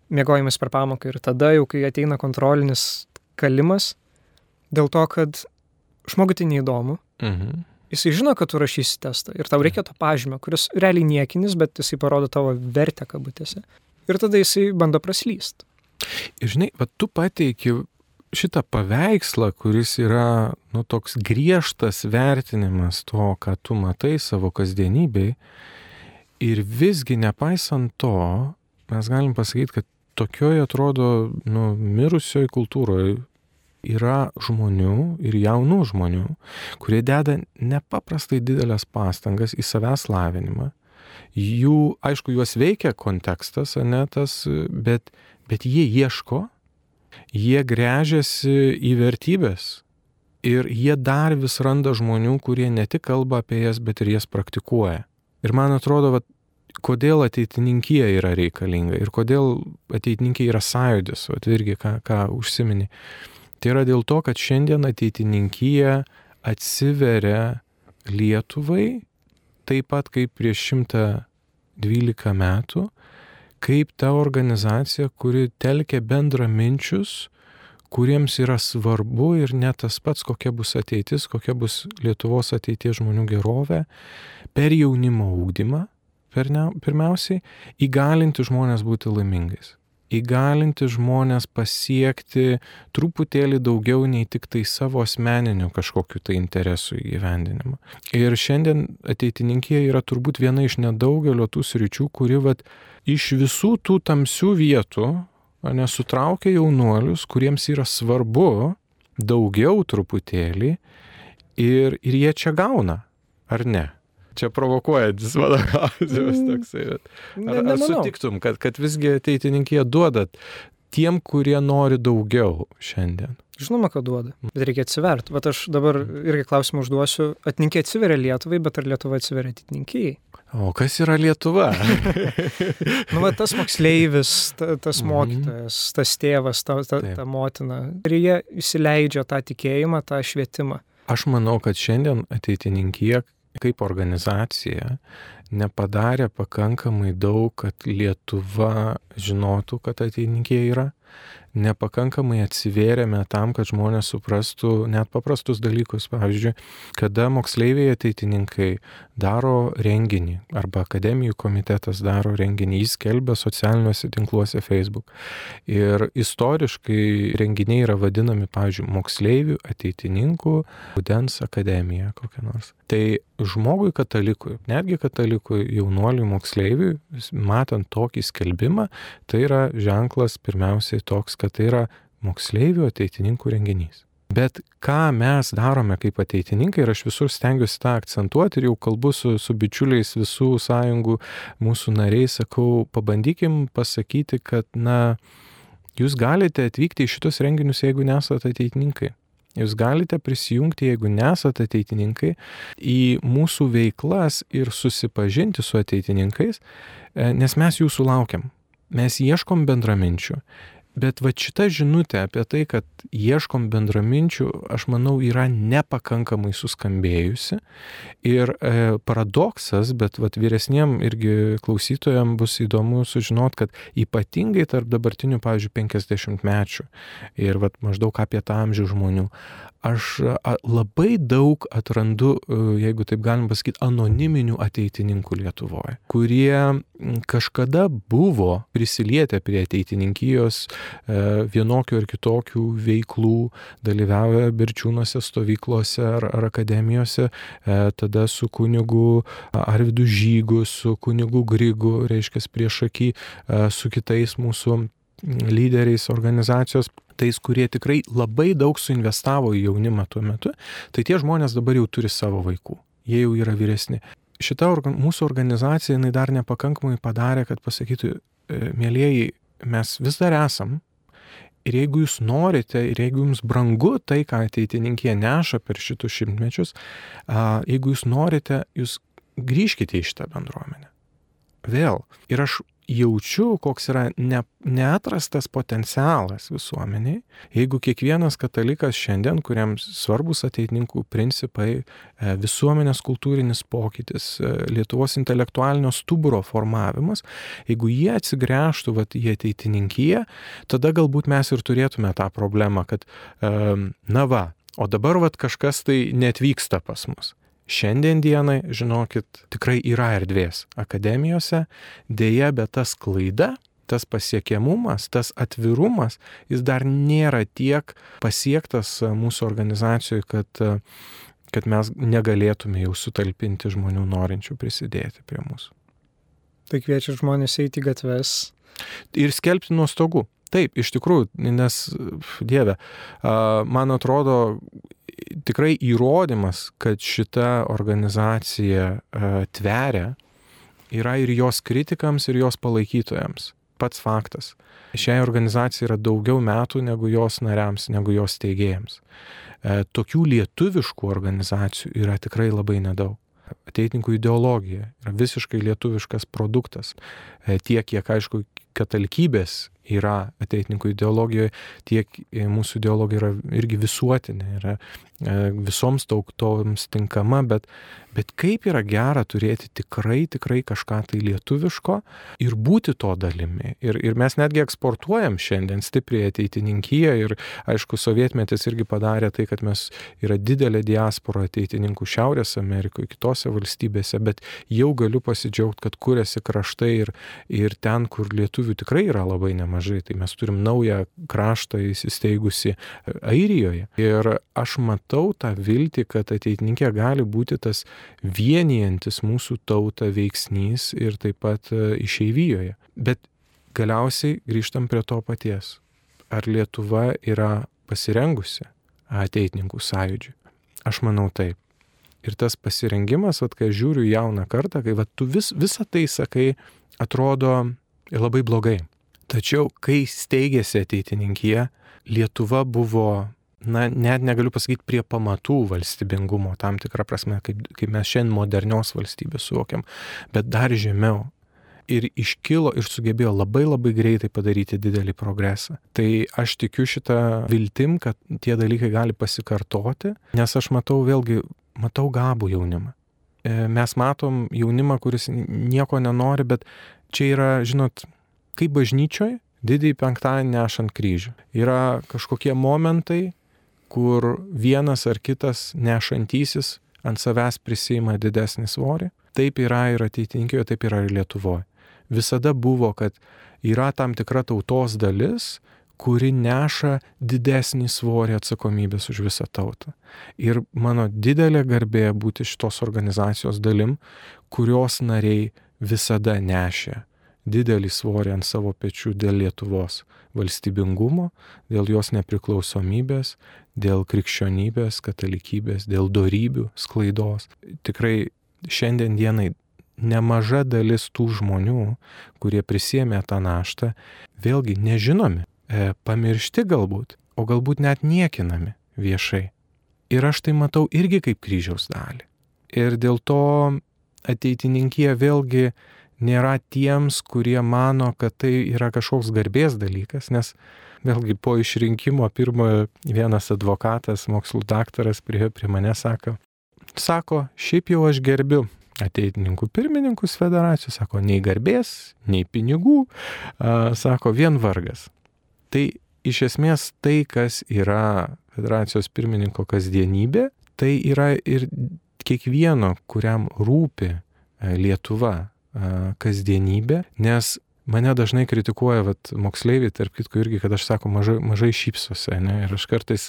miegojimas per pamoką ir tada jau, kai ateina kontrolinis kalimas, dėl to, kad žmogui tai neįdomu. Jisai žino, kad tu rašysi testą ir tau reikia to pažymio, kuris realiai niekinis, bet jisai parodo tavo vertę kabutėse. Ir tada jisai bando praslysti. Ir žinai, tu pateiki šitą paveikslą, kuris yra toks griežtas vertinimas to, ką tu matai savo kasdienybėj. Ir visgi nepaisant to, mes galim pasakyti, kad tokioje atrodo mirusioje kultūroje yra žmonių ir jaunų žmonių, kurie deda nepaprastai didelės pastangas į savęs lavinimą. Aišku, juos veikia kontekstas, bet jie ieško, jie gręžiasi į vertybės ir jie dar vis randa žmonių, kurie ne tik kalba apie jas, bet ir jas praktikuoja. Ir man atrodo, kodėl ateitininkija yra reikalinga ir kodėl ateitininkija yra sąjūdis, irgi ką užsimeni. Tai yra dėl to, kad šiandien ateitininkija atsiveria Lietuvai, taip pat kaip prieš 112 metų, kaip ta organizacija, kuri telkia bendraminčius, kuriems yra svarbu ir ne tas pats, kokia bus ateitis, kokia bus Lietuvos ateities žmonių gerovė, per jaunimo ugdymą, pirmiausiai, įgalinti žmonės būti laimingais. Įgalinti žmonės pasiekti truputėlį daugiau nei tik tai savo asmeninių kažkokių tai interesų įgyvendinimą. Ir šiandien ateitininkija yra turbūt viena iš nedaugelio tų sričių, kuri iš visų tų tamsių vietų sutraukia jaunuolius, kuriems yra svarbu daugiau truputėlį ir jie čia gauna, ar ne? Čia provokuojantis mano klausimas toksai. Ar sutiktum, kad visgi ateitininkija duoda tiem, kurie nori daugiau šiandien? Žinoma, kad duoda, bet reikia atsiverti. Aš dabar irgi klausimą užduosiu. Ateitininkija atsiveria Lietuvai, bet ar Lietuva atsiveria ateitininkijai? O kas yra Lietuva? Tas moksleivis, tas mokytojas, tas tėvas, ta motina. Ir jie įsileidžia tą tikėjimą, tą švietimą. Aš manau, kad šiandien ateitininkija kaip organizacija nepadarė pakankamai daug, kad Lietuva žinotų, kad ateitininkija yra. Nepakankamai atsivėrėme tam, kad žmonės suprastų net paprastus dalykus. Pavyzdžiui, kada moksleiviai ateitininkai daro renginį arba akademijų komitetas daro renginį, jis skelbia socialiniuose tinkluose Facebook. Ir istoriškai renginiai yra vadinami, pavyzdžiui, moksleivių ateitininkų rudens akademija kokia nors. Tai žmogui katalikui, netgi katalikui jaunuoliui moksleiviui, matant tokį skelbimą, tai yra ženklas pirmiausiai toks, kad tai yra moksleivių ateitininkų renginys. Bet ką mes darome kaip ateitininkai, ir aš visur stengiuosi tą akcentuoti ir jau kalbu su bičiuliais visų sąjungų, mūsų nariais, sakau, pabandykim pasakyti, kad, jūs galite atvykti į šitus renginius, jeigu nesate ateitininkai. Jūs galite prisijungti, jeigu nesate ateitininkai, į mūsų veiklas ir susipažinti su ateitininkais, nes mes jūsų laukiam. Mes ieškom bendraminčių. Bet va šita žinutė apie tai, kad ieškom bendraminčių, aš manau, yra nepakankamai suskambėjusi. Ir paradoksas, bet vyresniem irgi klausytojam bus įdomu sužinot, kad ypatingai tarp dabartinių, pavyzdžiui, 50-mečių ir maždaug apie tą amžių žmonių, aš labai daug atrandu, jeigu taip galim pasakyti, anoniminių ateitininkų Lietuvoje, kurie kažkada buvo prisilietę prie ateitininkijos vienokių ir kitokių veiklų, dalyvauja Berčiūnuose stovyklose ar akademijose, tada su kunigu Arvydu Žygu, su kunigu Grigu, reiškia priešaky, su kitais mūsų lyderiais organizacijos, tais, kurie tikrai labai daug suinvestavo į jaunimą tuo metu, tai tie žmonės dabar jau turi savo vaikų, jie jau yra vyresni. Šita mūsų organizacija, jinai dar nepakankamai padarė, kad pasakytų, mielieji, mes vis dar esam, ir jeigu jūs norite, ir jeigu jums brangu tai, ką ateitininkija neša per šitus šimtmečius, jeigu jūs norite, jūs grįžkite į šitą bendruomenę. Vėl. Ir aš jaučiu, koks yra neatrastas potencialas visuomeniai, jeigu kiekvienas katalikas šiandien, kuriam svarbus ateitininkų principai, visuomenės kultūrinis pokytis, Lietuvos intelektualinio stuburo formavimas, jeigu jie atsigręžtų į ateitininkiją, tada galbūt mes ir turėtume tą problemą, kad o dabar kažkas tai neatvyksta pas mus. Šiandien dienai, žinokit, tikrai yra erdvės akademijose, dėja, bet tas klaida, tas pasiekiamumas, tas atvirumas, jis dar nėra tiek pasiektas mūsų organizacijoje, kad mes negalėtume jau sutalpinti žmonių norinčių prisidėti prie mūsų. Tai kviečia žmonės eiti į gatves. Ir skelbti nuo stogų. Taip, iš tikrųjų, nes, Dieve, man atrodo, tikrai įrodymas, kad šita organizacija tveria, yra ir jos kritikams, ir jos palaikytojams. Pats faktas. Šiai organizacijai yra daugiau metų negu jos nariams, negu jos steigėjams. Tokių lietuviškų organizacijų yra tikrai labai nedaug. Ateitininkų ideologija yra visiškai lietuviškas produktas. Tiek, kiek, aišku, katalikybės yra ateitininkų ideologijoje, tiek mūsų ideologija yra irgi visuotinė, yra visoms tautoms tinkama, bet kaip yra gera turėti tikrai kažką tai lietuviško ir būti to dalimi. Ir mes netgi eksportuojam šiandien stipriai ateitininkiją ir, aišku, sovietmetis irgi padarė tai, kad mes yra didelė diaspora ateitininkų Šiaurės Amerikoje, kitose valstybėse, bet jau galiu pasidžiaugti, kad kuriasi kraštai ir ten, kur lietuvių tikrai yra labai nemažai. Tai mes turim naują kraštą įsisteigusi Airijoje. Ir aš matau tą viltį, kad ateitininkė gali būti tas vienijantis mūsų tautą veiksnys ir taip pat išeivijoje. Bet galiausiai grįžtam prie to paties. Ar Lietuva yra pasirengusi ateitininkų sąjūdžiui? Aš manau taip. Ir tas pasirengimas, kai žiūriu jauną kartą, kai tu visą tai sakai, atrodo labai blogai. Tačiau, kai steigėsi ateitininkija, Lietuva buvo, net negaliu pasakyti, prie pamatų valstybingumo, tam tikrą prasme, kaip mes šiandien modernios valstybės suvokiam, bet dar žemiau. Ir iškilo ir sugebėjo labai greitai padaryti didelį progresą. Tai aš tikiu šitą viltim, kad tie dalykai gali pasikartoti, nes aš matau gabų jaunimą. mes matom jaunimą, kuris nieko nenori, bet čia yra, žinot, kaip bažnyčioje, didįjį penktadienį nešant kryžių. Yra kažkokie momentai, kur vienas ar kitas nešantysis ant savęs prisima didesnį svorį. Taip yra ir ateitininkijoje, taip yra ir Lietuvoje. Visada buvo, kad yra tam tikra tautos dalis, kuri neša didesnį svorį atsakomybės už visą tautą. Ir mano didelė garbė būti šitos organizacijos dalim, kurios nariai visada nešė didelį svorį ant savo pečių dėl Lietuvos valstybingumo, dėl jos nepriklausomybės, dėl krikščionybės, katalikybės, dėl dorybių sklaidos. Tikrai šiandien dienai nemaža dalis tų žmonių, kurie prisėmė tą naštą, vėlgi nežinomi, pamiršti galbūt, o galbūt net niekinami viešai. Ir aš tai matau irgi kaip kryžiaus dalį. Ir dėl to ateitininkija vėlgi nėra tiems, kurie mano, kad tai yra kažkoks garbės dalykas, nes vėlgi po išrinkimo pirmojo vienas advokatas, mokslų daktaras prie mane sako, šiaip jau aš gerbiu ateitininkų pirmininkus federacijos, sako, nei garbės, nei pinigų, sako, vien vargas. Tai iš esmės tai, kas yra federacijos pirmininko kasdienybė, tai yra ir kiekvieno, kuriam rūpi Lietuva kasdienybė, nes mane dažnai kritikuoja moksleiviai, tarp kitko irgi, kad aš sako, mažai šypsosi, ne? Ir aš kartais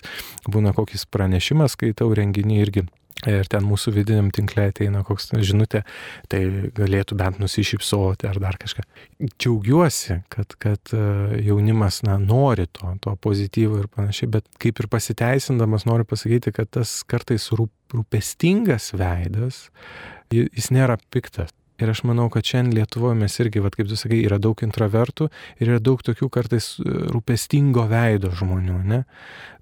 būna kokis pranešimas, skaitau renginį irgi. Ir ten mūsų vidiniam tinkle ateina koks žinutė, tai galėtų bent nusišypsoti ar dar kažką. Džiaugiuosi, kad jaunimas nori to pozityvo ir panašiai, bet kaip ir pasiteisindamas noriu pasakyti, kad tas kartais rūpestingas veidas, jis nėra piktas. Ir aš manau, kad šiandien Lietuvoje mes irgi, kaip tu sakai, yra daug intravertų ir yra daug tokių kartais rūpestingo veido žmonių, ne?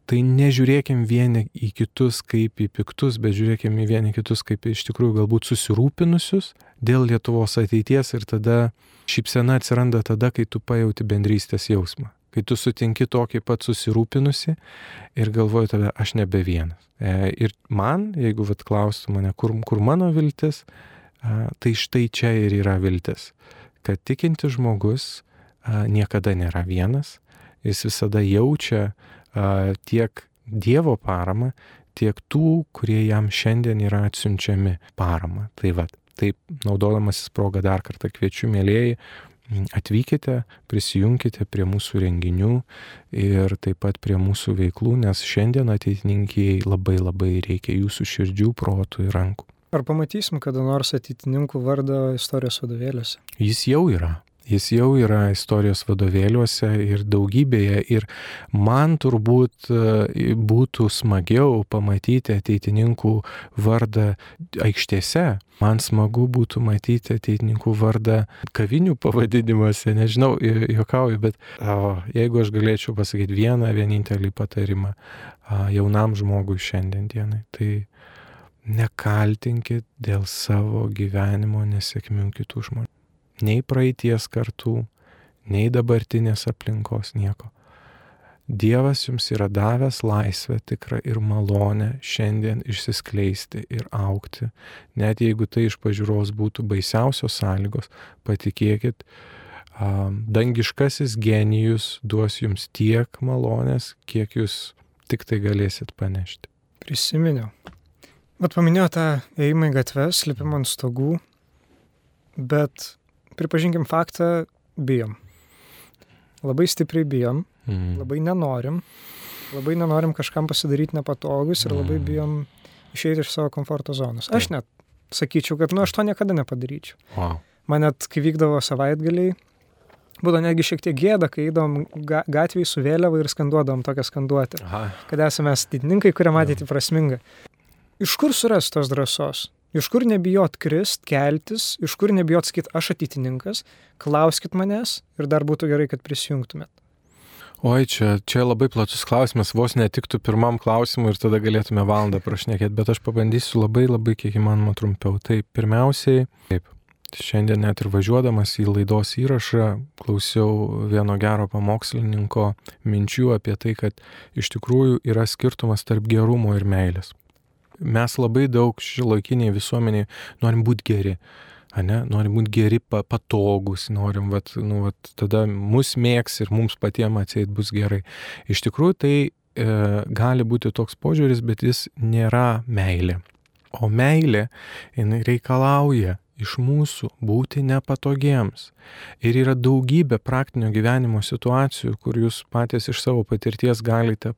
Tai nežiūrėkim vieni į kitus kaip į piktus, bet žiūrėkim į vieni kitus kaip iš tikrųjų galbūt susirūpinusius dėl Lietuvos ateities ir tada šypsena atsiranda tada, kai tu pajauti bendrystės jausmą. Kai tu sutinki tokį pat susirūpinusi ir galvoji tada, aš nebe vienas. Ir man, jeigu klaustų mane, kur mano viltis, tai štai čia ir yra viltis, kad tikintis žmogus niekada nėra vienas, jis visada jaučia tiek Dievo paramą, tiek tų, kurie jam šiandien yra atsiunčiami paramą. Taip, naudodamasis progą dar kartą kviečiu, mielieji, atvykite, prisijunkite prie mūsų renginių ir taip pat prie mūsų veiklų, nes šiandien ateitininkijai labai reikia jūsų širdžių, protų ir rankų. Ar pamatysim kada nors ateitininkų vardą istorijos vadovėliuose? Jis jau yra istorijos vadovėliuose ir daugybėje ir man turbūt būtų smagiau pamatyti ateitininkų vardą aikštėse. Man smagu būtų matyti ateitininkų vardą kavinių pavadinimuose, nežinau, juokauju, bet jeigu aš galėčiau pasakyti vienintelį patarimą jaunam žmogui šiandien dienai, tai nekaltinkit dėl savo gyvenimo nesėkmių kitų žmonių. Nei praeities kartų, nei dabartinės aplinkos, nieko. Dievas jums yra davęs laisvę tikrą ir malonę šiandien išsiskleisti ir augti. Net jeigu tai iš pažiūros būtų baisiausios sąlygos, patikėkit, dangiškasis genijus duos jums tiek malonės, kiek jūs tik tai galėsit panešti. Prisiminiau. Paminėjau tą ėjimą į gatves, lipimą ant stogų, bet pripažinkim faktą, bijom. Labai stipriai bijom, labai nenorim kažkam pasidaryti nepatogus ir labai bijom išeiti iš savo komforto zonos. Aš net sakyčiau, kad aš to niekada nepadaryčiau. Wow. Man net, kai vykdavo savaitgaliai, būdavo netgi šiek tiek gėda, kai eidom gatvėj su vėliava ir skanduodavom tokią skanduotę. Kad esame ateitininkai, kurie matyti prasminga. Iš kur surasti tos drąsos? Iš kur nebijot krist, keltis, iš kur nebijot sakyti, aš ateitininkas, klauskit manęs ir dar būtų gerai, kad prisijungtumėt. Oi, čia labai platus klausimas, vos netiktų pirmam klausimui ir tada galėtume valandą prašnekėti, bet aš pabandysiu labai kiek įmanoma trumpiau. Tai pirmiausiai, šiandien net ir važiuodamas į laidos įrašą, klausiau vieno gero pamokslininko minčių apie tai, kad iš tikrųjų yra skirtumas tarp gerumo ir meilės. mes labai daug šiuolaikiniai visuomeniai norim būti geri. Norim būti geri, patogus, norim, tada mus mėgs ir mums patiems atseit bus gerai. Iš tikrųjų, tai gali būti toks požiūris, bet jis nėra meilė. O meilė, jinai reikalauja iš mūsų būti nepatogiems. Ir yra daugybė praktinio gyvenimo situacijų, kur jūs patys iš savo patirties galite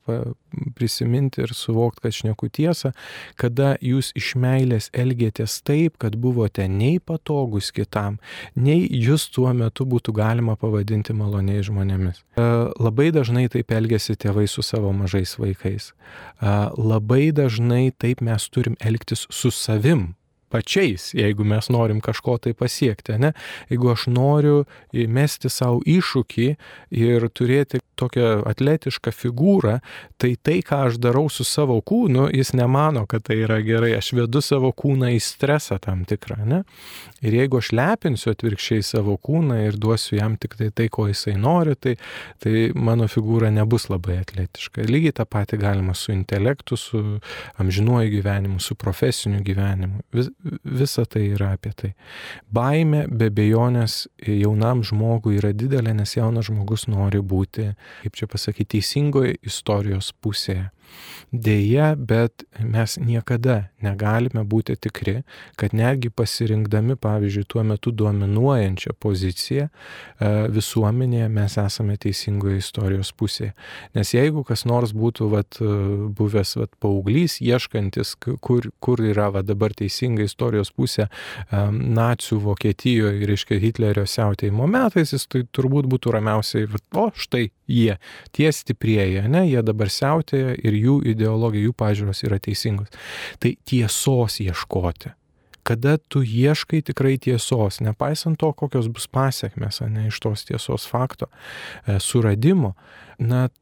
prisiminti ir suvokti, kad šneku tiesą, kada jūs iš meilės elgėtės taip, kad buvote nei patogus kitam, nei jūs tuo metu būtų galima pavadinti maloniais žmonėmis. Labai dažnai taip elgiasi tėvai su savo mažais vaikais. Labai dažnai taip mes turim elgtis su savim pačiais, jeigu mes norim kažko tai pasiekti, ne? Jeigu aš noriu mesti savo iššūkį ir turėti tokią atletišką figūrą, tai, ką aš darau su savo kūnu, jis nemano, kad tai yra gerai. Aš vedu savo kūną į stresą tam tikrą, ne? Ir jeigu aš lepinsiu atvirkščiai savo kūną ir duosiu jam tik tai, ko jisai nori, tai mano figūra nebus labai atletiška. Lygiai tą patį galima su intelektu, su amžinuoju gyvenimu, su profesiniu gyvenimu. Visa tai yra apie tai. Baimė be abejonės jaunam žmogui yra didelė, nes jaunas žmogus nori būti, kaip čia pasakyti, teisingoje istorijos pusėje. Deja, bet mes niekada negalime būti tikri, kad netgi pasirinkdami, pavyzdžiui, tuo metu dominuojančią poziciją visuomenėje mes esame teisingoje istorijos pusėje. Nes jeigu kas nors būtų buvęs paauglys, ieškantis, kur yra dabar teisinga istorijos pusė nacių Vokietijoje, reiškia Hitlerio siautėjimo metais, jis tai turbūt būtų ramiausiai, štai jie, tie stiprieji, ne, jie dabar siautėja ir jų ideologija, jų pažiūros yra teisingos. Tai tiesos ieškoti. Kada tu ieškai tikrai tiesos, nepaisant to, kokios bus pasiekmes, ne, iš tos tiesos fakto suradimo,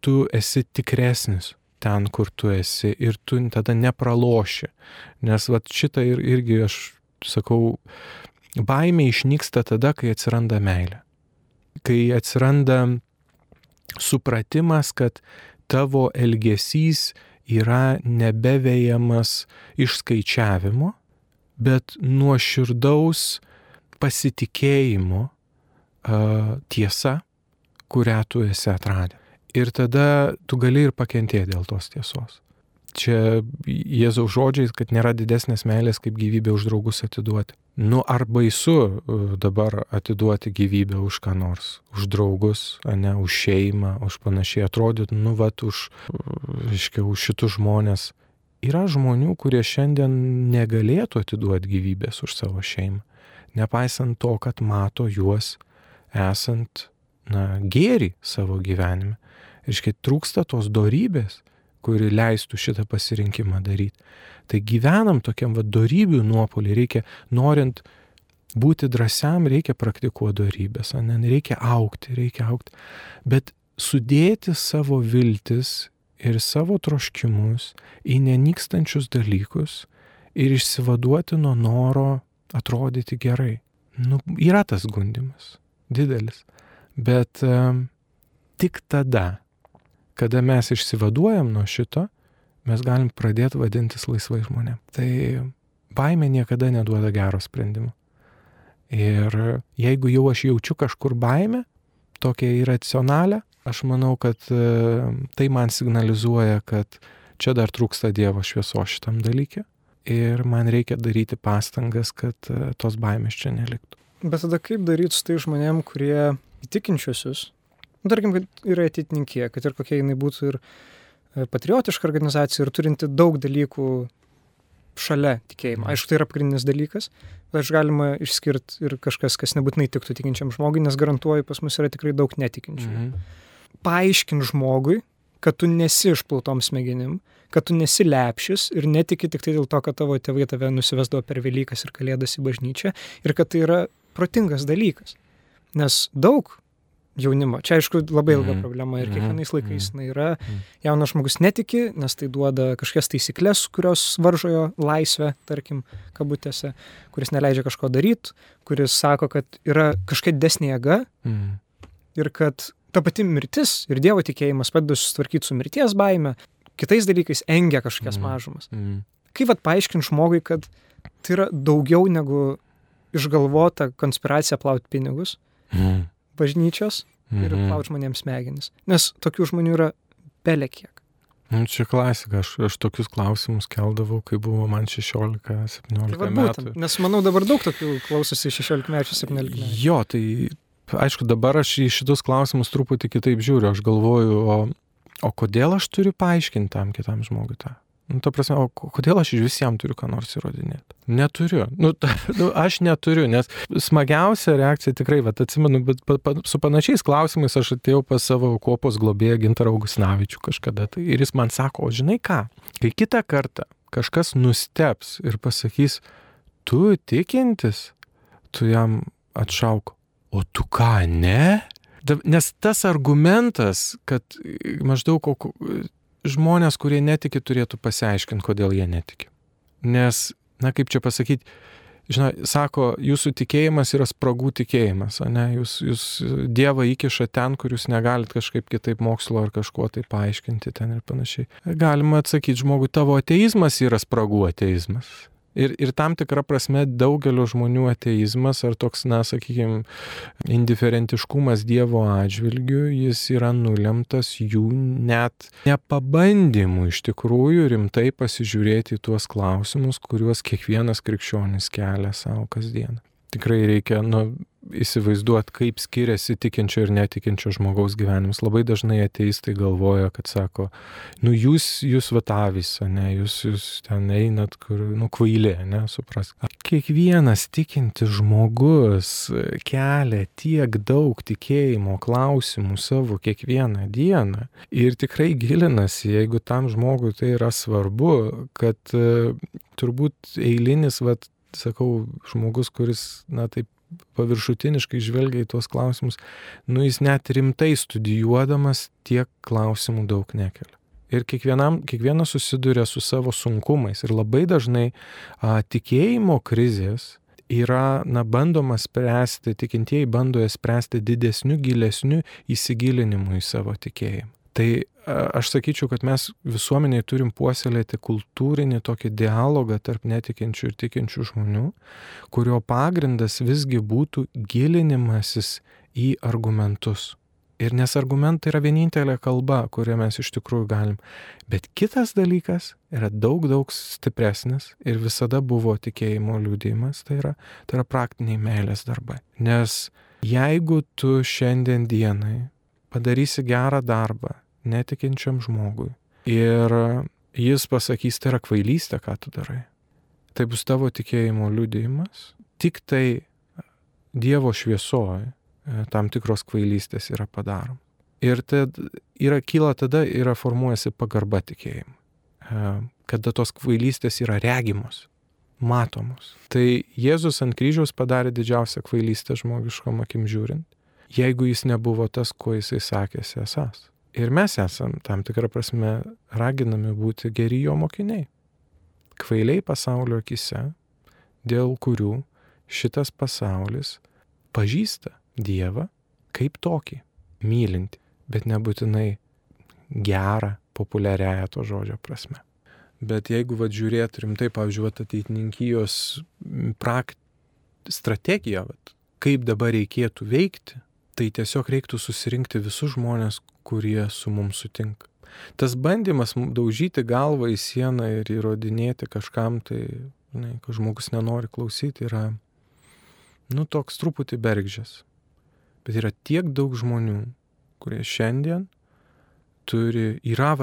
tu esi tikresnis ten, kur tu esi ir tu tada nepraloši. Nes šitą irgi aš sakau, baimė išnyksta tada, kai atsiranda meilė. Kai atsiranda supratimas, kad tavo elgesys yra nebevejamas išskaičiavimo, bet nuoširdaus pasitikėjimo tiesa, kurią tu esi atradęs. Ir tada tu gali ir pakentėti dėl tos tiesos. Čia Jėzaus žodžiais, kad nėra didesnės meilės, kaip gyvybę už draugus atiduoti. Ar baisu dabar atiduoti gyvybę už ką nors, už draugus, ne, už šeimą, už panašiai atrodyt, už šitus žmonės. Yra žmonių, kurie šiandien negalėtų atiduoti gyvybės už savo šeimą, nepaisant to, kad mato juos esant, gėrį savo gyvenime. Reiškia, trūksta tos dorybės, kuri leistų šitą pasirinkimą daryti. Tai gyvenam tokiam dorybių nuopolį, reikia, norint būti drąsiam, reikia praktikuoti dorybės, reikia augti, bet sudėti savo viltis ir savo troškimus į nenykstančius dalykus ir išsivaduoti nuo noro atrodyti gerai. Yra tas gundymas, didelis, bet tik tada, kada mes išsivaduojam nuo šito, mes galim pradėti vadintis laisvai žmonėm. Tai baimė niekada neduoda gero sprendimo. Ir jeigu jau aš jaučiu kažkur baimę, tokia irracionalią, aš manau, kad tai man signalizuoja, kad čia dar trūksta Dievo šviesos šitam dalyke ir man reikia daryti pastangas, kad tos baimės čia neliktų. Bet tada kaip daryti su tai žmonėm, kurie įtikinčiusius, tarkim, kad yra ateitininkė, kad ir kokia jinai būtų ir patriotiška organizacija ir turinti daug dalykų šalia tikėjimo. Aišku, tai yra pagrindinis dalykas, bet aš galima išskirti ir kažkas, kas nebūtinai tiktų tikinčiam žmogui, nes garantuoju, pas mus yra tikrai daug netikinčių. Paaiškink žmogui, kad tu nesi išplautom smegenim, kad tu nesi lepšis ir netiki tik tai dėl to, kad tavo tėvai tave nusivesdavo per Velykas ir Kalėdas į bažnyčią ir kad tai yra protingas dalykas. Nes daug jaunimo, čia aišku labai ilga problema ir kiekvienais laikais yra, jaunas žmogus netiki, nes tai duoda kažkokias taisyklės, kurios varžo jo laisvę, tarkim, kabutėse, kuris neleidžia kažko daryti, kuris sako, kad yra kažkokia didesnė jėga ir kad ta pati mirtis ir Dievo tikėjimas padeda susitvarkyti su mirties baime, kitais dalykais engia kažkokias mažumas. Kaip paaiškinti žmogui, kad tai yra daugiau negu išgalvota konspiracija plauti pinigus, bažnyčios ir plauti žmonėms smegenis. Nes tokių žmonių yra belekiek. Čia klasika, aš tokius klausimus keldavau, kai buvo man 16-17 metų. Nes manau dabar daug tokių klausosi 16-mečių, 17-mečių. Jo, tai aišku, dabar aš į šitus klausimus truputį kitaip žiūriu. Aš galvoju, o kodėl aš turiu paaiškinti tam kitam žmogui tą? Ta prasme, o kodėl aš iš visiems turiu ką nors įrodinėti? Neturiu. Aš neturiu, nes smagiausia reakcija tikrai, atsimenu, bet su panašiais klausimais aš atėjau pas savo kuopos globėją Gintarą Augustinavičių kažkada. Ir jis man sako, o žinai ką, kai kitą kartą kažkas nusteps ir pasakys, tu tikintis, tu jam atšauk, o tu ką, ne? Nes tas argumentas, kad maždaug žmonės, kurie netiki, turėtų pasiaiškinti, kodėl jie netiki. Nes, kaip čia pasakyti, sako, jūsų tikėjimas yra spragų tikėjimas, ne? Jūs Dievą įkiša ten, kur jūs negalit kažkaip kitaip mokslo ar kažkuo tai paaiškinti ten ir panašiai. Galima atsakyti žmogui, tavo ateizmas yra spragų ateizmas. Ir tam tikra prasme daugelio žmonių ateizmas ar toks, sakykime, indiferentiškumas Dievo atžvilgiu, jis yra nulemtas jų net nepabandymų iš tikrųjų rimtai pasižiūrėti į tuos klausimus, kuriuos kiekvienas krikščionis kelia savo kasdieną. Tikrai reikia įsivaizduoti, kaip skiriasi tikinčio ir netikinčio žmogaus gyvenimas. Labai dažnai ateistai galvoja, kad sako, jūs avys, ne, jūs ten einat, kur, kvailė, ne, suprask. Kiekvienas tikintis žmogus kelia tiek daug tikėjimo klausimų savo kiekvieną dieną ir tikrai gilinasi, jeigu tam žmogui tai yra svarbu, kad turbūt eilinis, sakau, žmogus, kuris, taip paviršutiniškai žvelgia į tuos klausimus, jis net rimtai studijuodamas tiek klausimų daug nekelia. Ir kiekvienas susiduria su savo sunkumais. Ir labai dažnai tikėjimo krizės yra, bandoma spręsti, tikintieji bando jas spręsti didesniu, gilesniu įsigilinimu į savo tikėjimą. Tai aš sakyčiau, kad mes visuomeniai turim puoselėti kultūrinį tokį dialogą tarp netikinčių ir tikinčių žmonių, kurio pagrindas visgi būtų gilinimasis į argumentus. Ir nes argumentai yra vienintelė kalba, kurią mes iš tikrųjų galim. Bet kitas dalykas yra daug stipresnis ir visada buvo tikėjimo liudijimas, tai yra praktiniai meilės darbai. Nes jeigu tu šiandien dienai padarysi gerą darbą netikinčiam žmogui ir jis pasakys, tai yra kvailystė, ką tu darai, tai bus tavo tikėjimo liudijimas, tik tai Dievo šviesoje tam tikros kvailystės yra padaroma. Ir kyla tada yra formuojasi pagarba tikėjimui, kada tos kvailystės yra regimos, matomos. Tai Jėzus ant kryžiaus padarė didžiausią kvailystę žmogiškom akim žiūrint, jeigu jis nebuvo tas, ko jisai sakėsi esas. Ir mes esam tam tikrą prasme raginami būti geri jo mokiniai. Kvailiai pasaulio akise, dėl kurių šitas pasaulis pažįsta Dievą kaip tokį, mylintį, bet nebūtinai gerą, populiariąją to žodžio prasme. Bet jeigu žiūrėt rimtai, pavyzdžiui, ateitininkijos strategiją, kaip dabar reikėtų veikti, tai tiesiog reiktų susirinkti visus žmonės, kurie su mums sutinka. Tas bandymas daužyti galvą į sieną ir įrodinėti kažkam, tai, kad žmogus nenori klausyti, yra, toks truputį bergždžias. Bet yra tiek daug žmonių, kurie šiandien yra,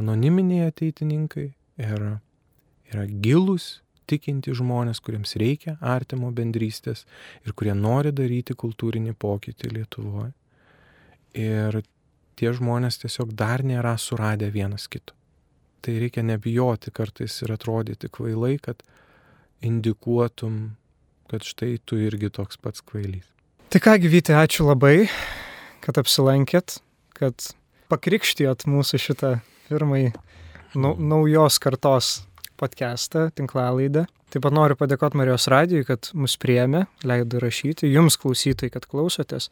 anoniminiai ateitininkai, yra gilūs, tikinti žmonės, kuriems reikia artimo bendrystės ir kurie nori daryti kultūrinį pokytį Lietuvoje. Ir tie žmonės tiesiog dar nėra suradę vienas kito. Tai reikia nebijoti kartais ir atrodyti kvailai, kad indikuotum, kad štai tu irgi toks pats kvailys. Tai ką, Vyti, ačiū labai, kad apsilankėt, kad pakrikštijot mūsų šitą pirmąjį naujos kartos podcastą, tinklalaidę. Taip pat noriu padėkoti Marijos radijui, kad mus priėmė, leido rašyti, jums klausytojai, kad klausotės,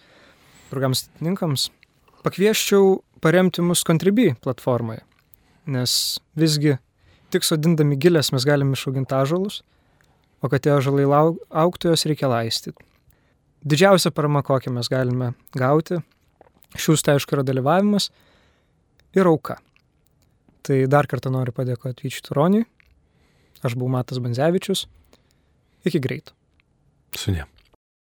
draugams atininkams. Pakvieščiau paremti mus Contribui platformoje, nes visgi tik sodindami gilės mes galim išauginti ąžuolus, o kad tie ąžuolai augtų, jos reikia laistyti. Didžiausia parama, kokią mes galime gauti, šiūstai aišku yra dalyvavimas ir auka. Tai dar kartą noriu padėkoti Vyčiui Turoniui. Aš buvau Matas Banzevičius. Iki greito. Sudie.